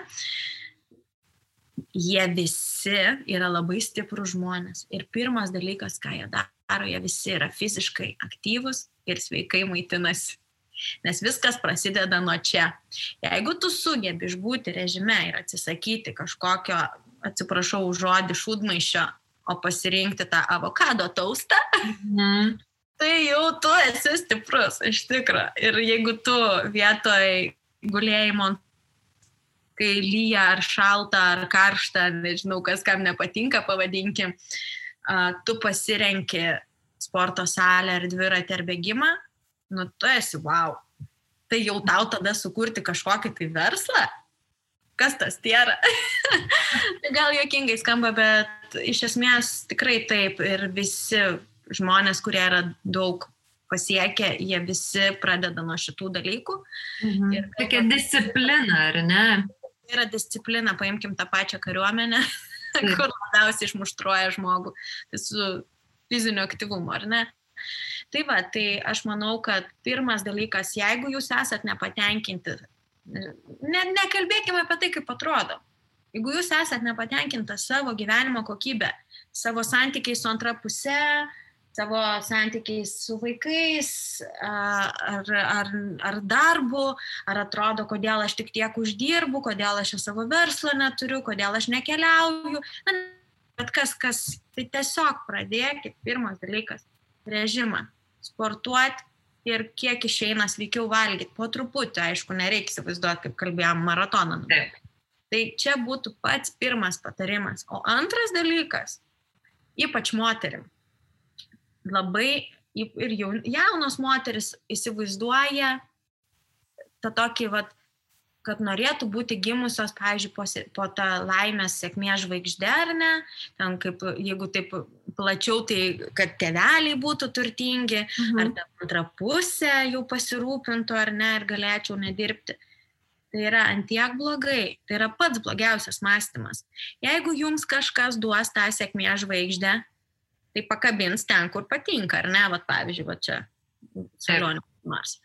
S3: Jie visi yra labai stiprūs žmonės. Ir pirmas dalykas, ką jie daro, jie visi yra fiziškai aktyvus, ir sveikai maitinasi. Nes viskas prasideda nuo čia. Jeigu tu sugebi išbūti režime ir atsisakyti kažkokio, atsiprašau už žodį, šūdmaišio, o pasirinkti tą avokado taustą, tai jau tu esi stiprus, iš tikro. Ir jeigu tu vietoj gulėjimo, kai lyja ar šalta, ar karšta, nežinau, kas kam nepatinka, pavadinkim, tu pasirenki sporto salę ar dviratį ar bėgimą, nu tu esi wow. Tai jau tau tada sukurti kažkokį tai verslą? Kas tas tėra? Gal juokingai skamba, bet iš esmės tikrai taip. Ir visi žmonės, kurie yra daug pasiekę, jie visi pradeda nuo šitų dalykų. Ir
S2: tokia disciplina, ar ne?
S3: Tai yra disciplina, paimkim tą pačią kariuomenę, kur labiausiai išmuštruoja žmogų. Tai su fiziniu aktyvumu, ar ne? Tai va, tai aš manau, kad pirmas dalykas, jeigu jūs esat nepatenkinti, nekalbėkime apie tai, kaip atrodo. Jeigu jūs esat nepatenkintas savo gyvenimo kokybę, savo santykiai su antra puse, savo santykiai su vaikais, ar darbu, ar atrodo, kodėl aš tik tiek uždirbu, kodėl aš savo verslo neturiu, kodėl aš nekeliauju. Bet kas, tai tiesiog pradėkit, pirmas dalykas, režimą, sportuoti ir kiek išeina sveikiau valgyti. Po truputį, aišku, nereikia įsivaizduoti, kaip kalbėjom, maratoną. Tai čia būtų pats pirmas patarimas. O antras dalykas, ypač moterim, labai ir jaunos moteris įsivaizduoja tą tokį, kad norėtų būti gimusios, pavyzdžiui, po tą laimės sėkmės žvaigždę, ar ne? Ten kaip, jeigu taip plačiau, tai kad tėveliai būtų turtingi, ar ta antra pusė jau pasirūpintų, ar ne, ir galėčiau nedirbti. Tai yra antiek blogai, tai yra pats blogiausias mąstymas. Jeigu jums kažkas duos tą sėkmės žvaigždę, tai pakabins ten, kur patinka, ar ne? Pavyzdžiui, čia salonė nors.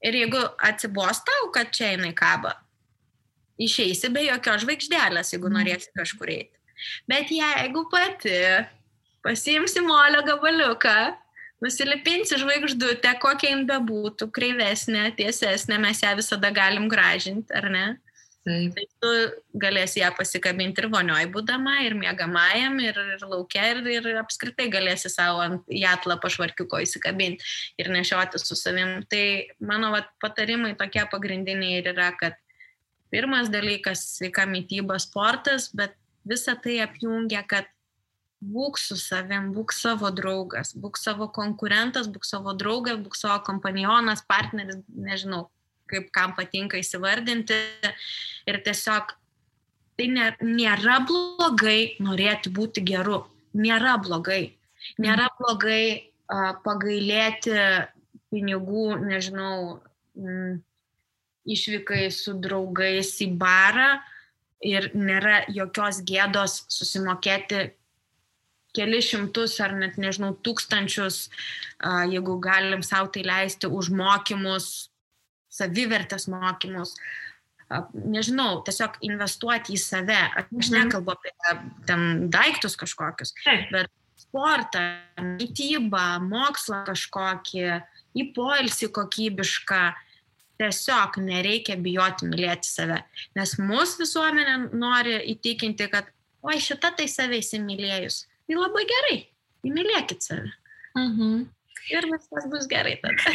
S3: Ir jeigu atsibos tau, kad čia jinai kaba, išeisi be jokios žvaigždelės, jeigu norėsi kažkur eiti. Bet jeigu pati pasiimsi molio gabaliuką, nusilipinsi žvaigždutę, kokia jin bebūtų, kreivesnė, tiesesnė, mes ją visada galim gražinti, ar ne? Tai tu galėsi ją pasikabinti ir vonioj būdama, ir miegamajam, ir lauke, ir apskritai galėsi savo ant jatlą pašvarkiuko įsikabinti ir nešioti su savim. Tai mano patarimai tokie pagrindiniai ir yra, kad pirmas dalykas sveika mityba, sportas, bet visa tai apjungia, kad būk su savim, būk savo draugas, būk savo konkurentas, būk savo draugas, būk savo kompanionas, partneris, nežinau, kaip kam patinka įsivardinti. Ir tiesiog tai nėra blogai norėti būti geru. Nėra blogai. Nėra blogai pagailėti pinigų, nežinau, išvykai su draugais į barą ir nėra jokios gėdos susimokėti kelis šimtus ar net, nežinau, tūkstančius, jeigu galim sau tai leisti, už mokymus, savivertės mokymus, nežinau, tiesiog investuoti į save. Aš nekalbu apie ten daiktus kažkokius, bet sportą, mitybą, mokslą kažkokį, į poilsį kokybišką, tiesiog nereikia bijoti mylėti save. Nes mūsų visuomenė nori įtikinti, kad oi, šita tai save įsimylėjus. Tai labai gerai, įmylėkit save. Ir viskas bus gerai tada.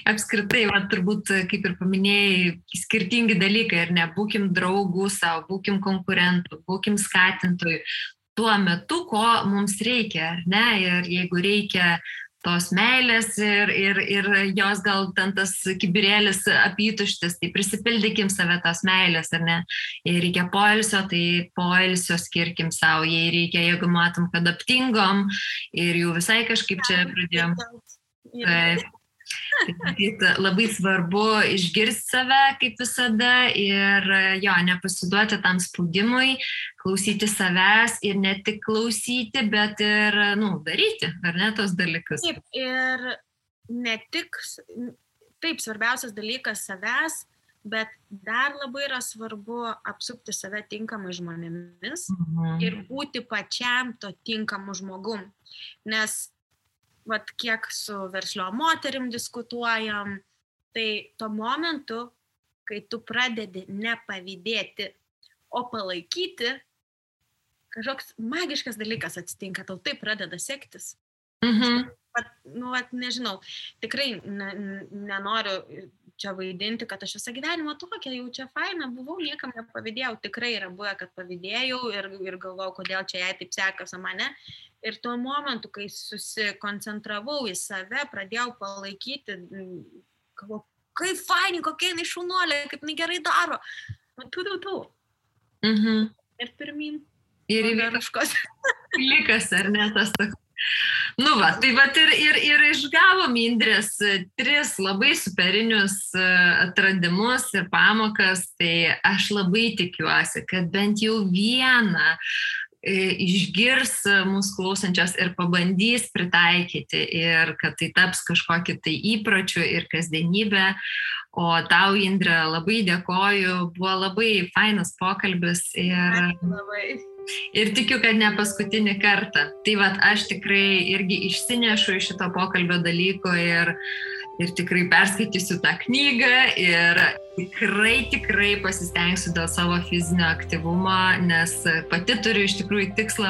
S2: Apskritai, turbūt, kaip ir paminėjai, skirtingi dalykai, ir nebūkim draugų savo, būkim konkurentų, būkim skatintojų tuo metu, ko mums reikia, ar ne? Ir jeigu reikia tos meilės ir jos gal ten tas kibirėlis apytuštis, tai prisipildykim save tos meilės, ar ne? Jei reikia poilsio, tai poilsio skirkim savo, jei reikia, jeigu matom, kad aptingom ir jau visai kažkaip čia pradėjom. Tai labai svarbu išgirsti save kaip visada ir nepasiduoti tam spaudimui, klausyti savęs ir ne tik klausyti, bet ir daryti, ar ne, tos dalykus.
S3: Taip, ir ne tik, taip, svarbiausias dalykas savęs, bet dar labai yra svarbu apsupti save tinkamai žmonėmis ir būti pačiam to tinkamu žmogum, nes vat, kiek su verslio moterim diskutuojam, tai tuo momentu, kai tu pradedi nepavydėti, o palaikyti, kažkoks magiškas dalykas atsitinka, tau tai pradeda sektis. Nežinau, tikrai nenoriu čia vaidinti, kad aš visą gyvenimą tokia, jau čia faina buvau, niekam nepavydėjau, tikrai yra buvę, kad pavydėjau ir galvojau, kodėl čia jai taip sekasi mane. Ir tuo momentu, kai susikoncentravau į save, pradėjau palaikyti, galvojau, kaip faini, kokia jinai šaunuolė, kaip jinai gerai daro. Ir pirmin.
S2: Ir įvykas likas, ar ne, tas toks. Nu va, tai vat ir išgavom Indrės 3 labai superinius atradimus ir pamokas, tai aš labai tikiuosi, kad bent jau vieną išgirs mūsų klausančios ir pabandys pritaikyti ir kad tai taps kažkokį tai įpročių ir kasdienybę. O tau, Indrė, labai dėkoju, buvo labai fainas pokalbis ir tikiu, kad ne paskutinį kartą. Tai vat aš tikrai irgi išsinešu iš šito pokalbio dalyko ir tikrai perskaitysiu tą knygą ir tikrai pasistengsiu dėl savo fizinio aktyvumo, nes pati turiu iš tikrųjų tikslą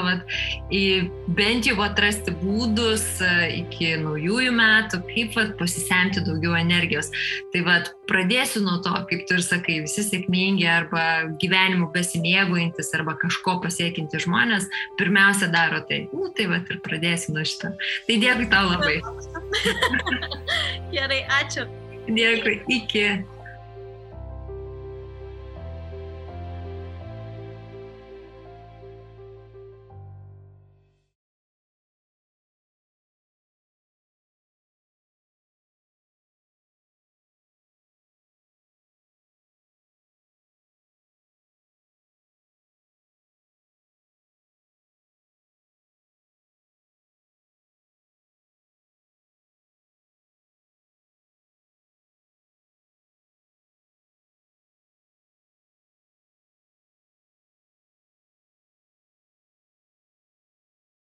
S2: bent jau atrasti būdus iki naujųjų metų, kaip pasisemti daugiau energijos. Tai pradėsiu nuo to, kaip tu ir sakai, visi sėkmingi arba gyvenimu besimėgaujantis arba kažko pasiekinti žmonės, pirmiausia daro tai. Tai ir pradėsiu nuo šito. Tai dėkui tau labai.
S3: Gerai, ačiū.
S2: Dėkui, iki.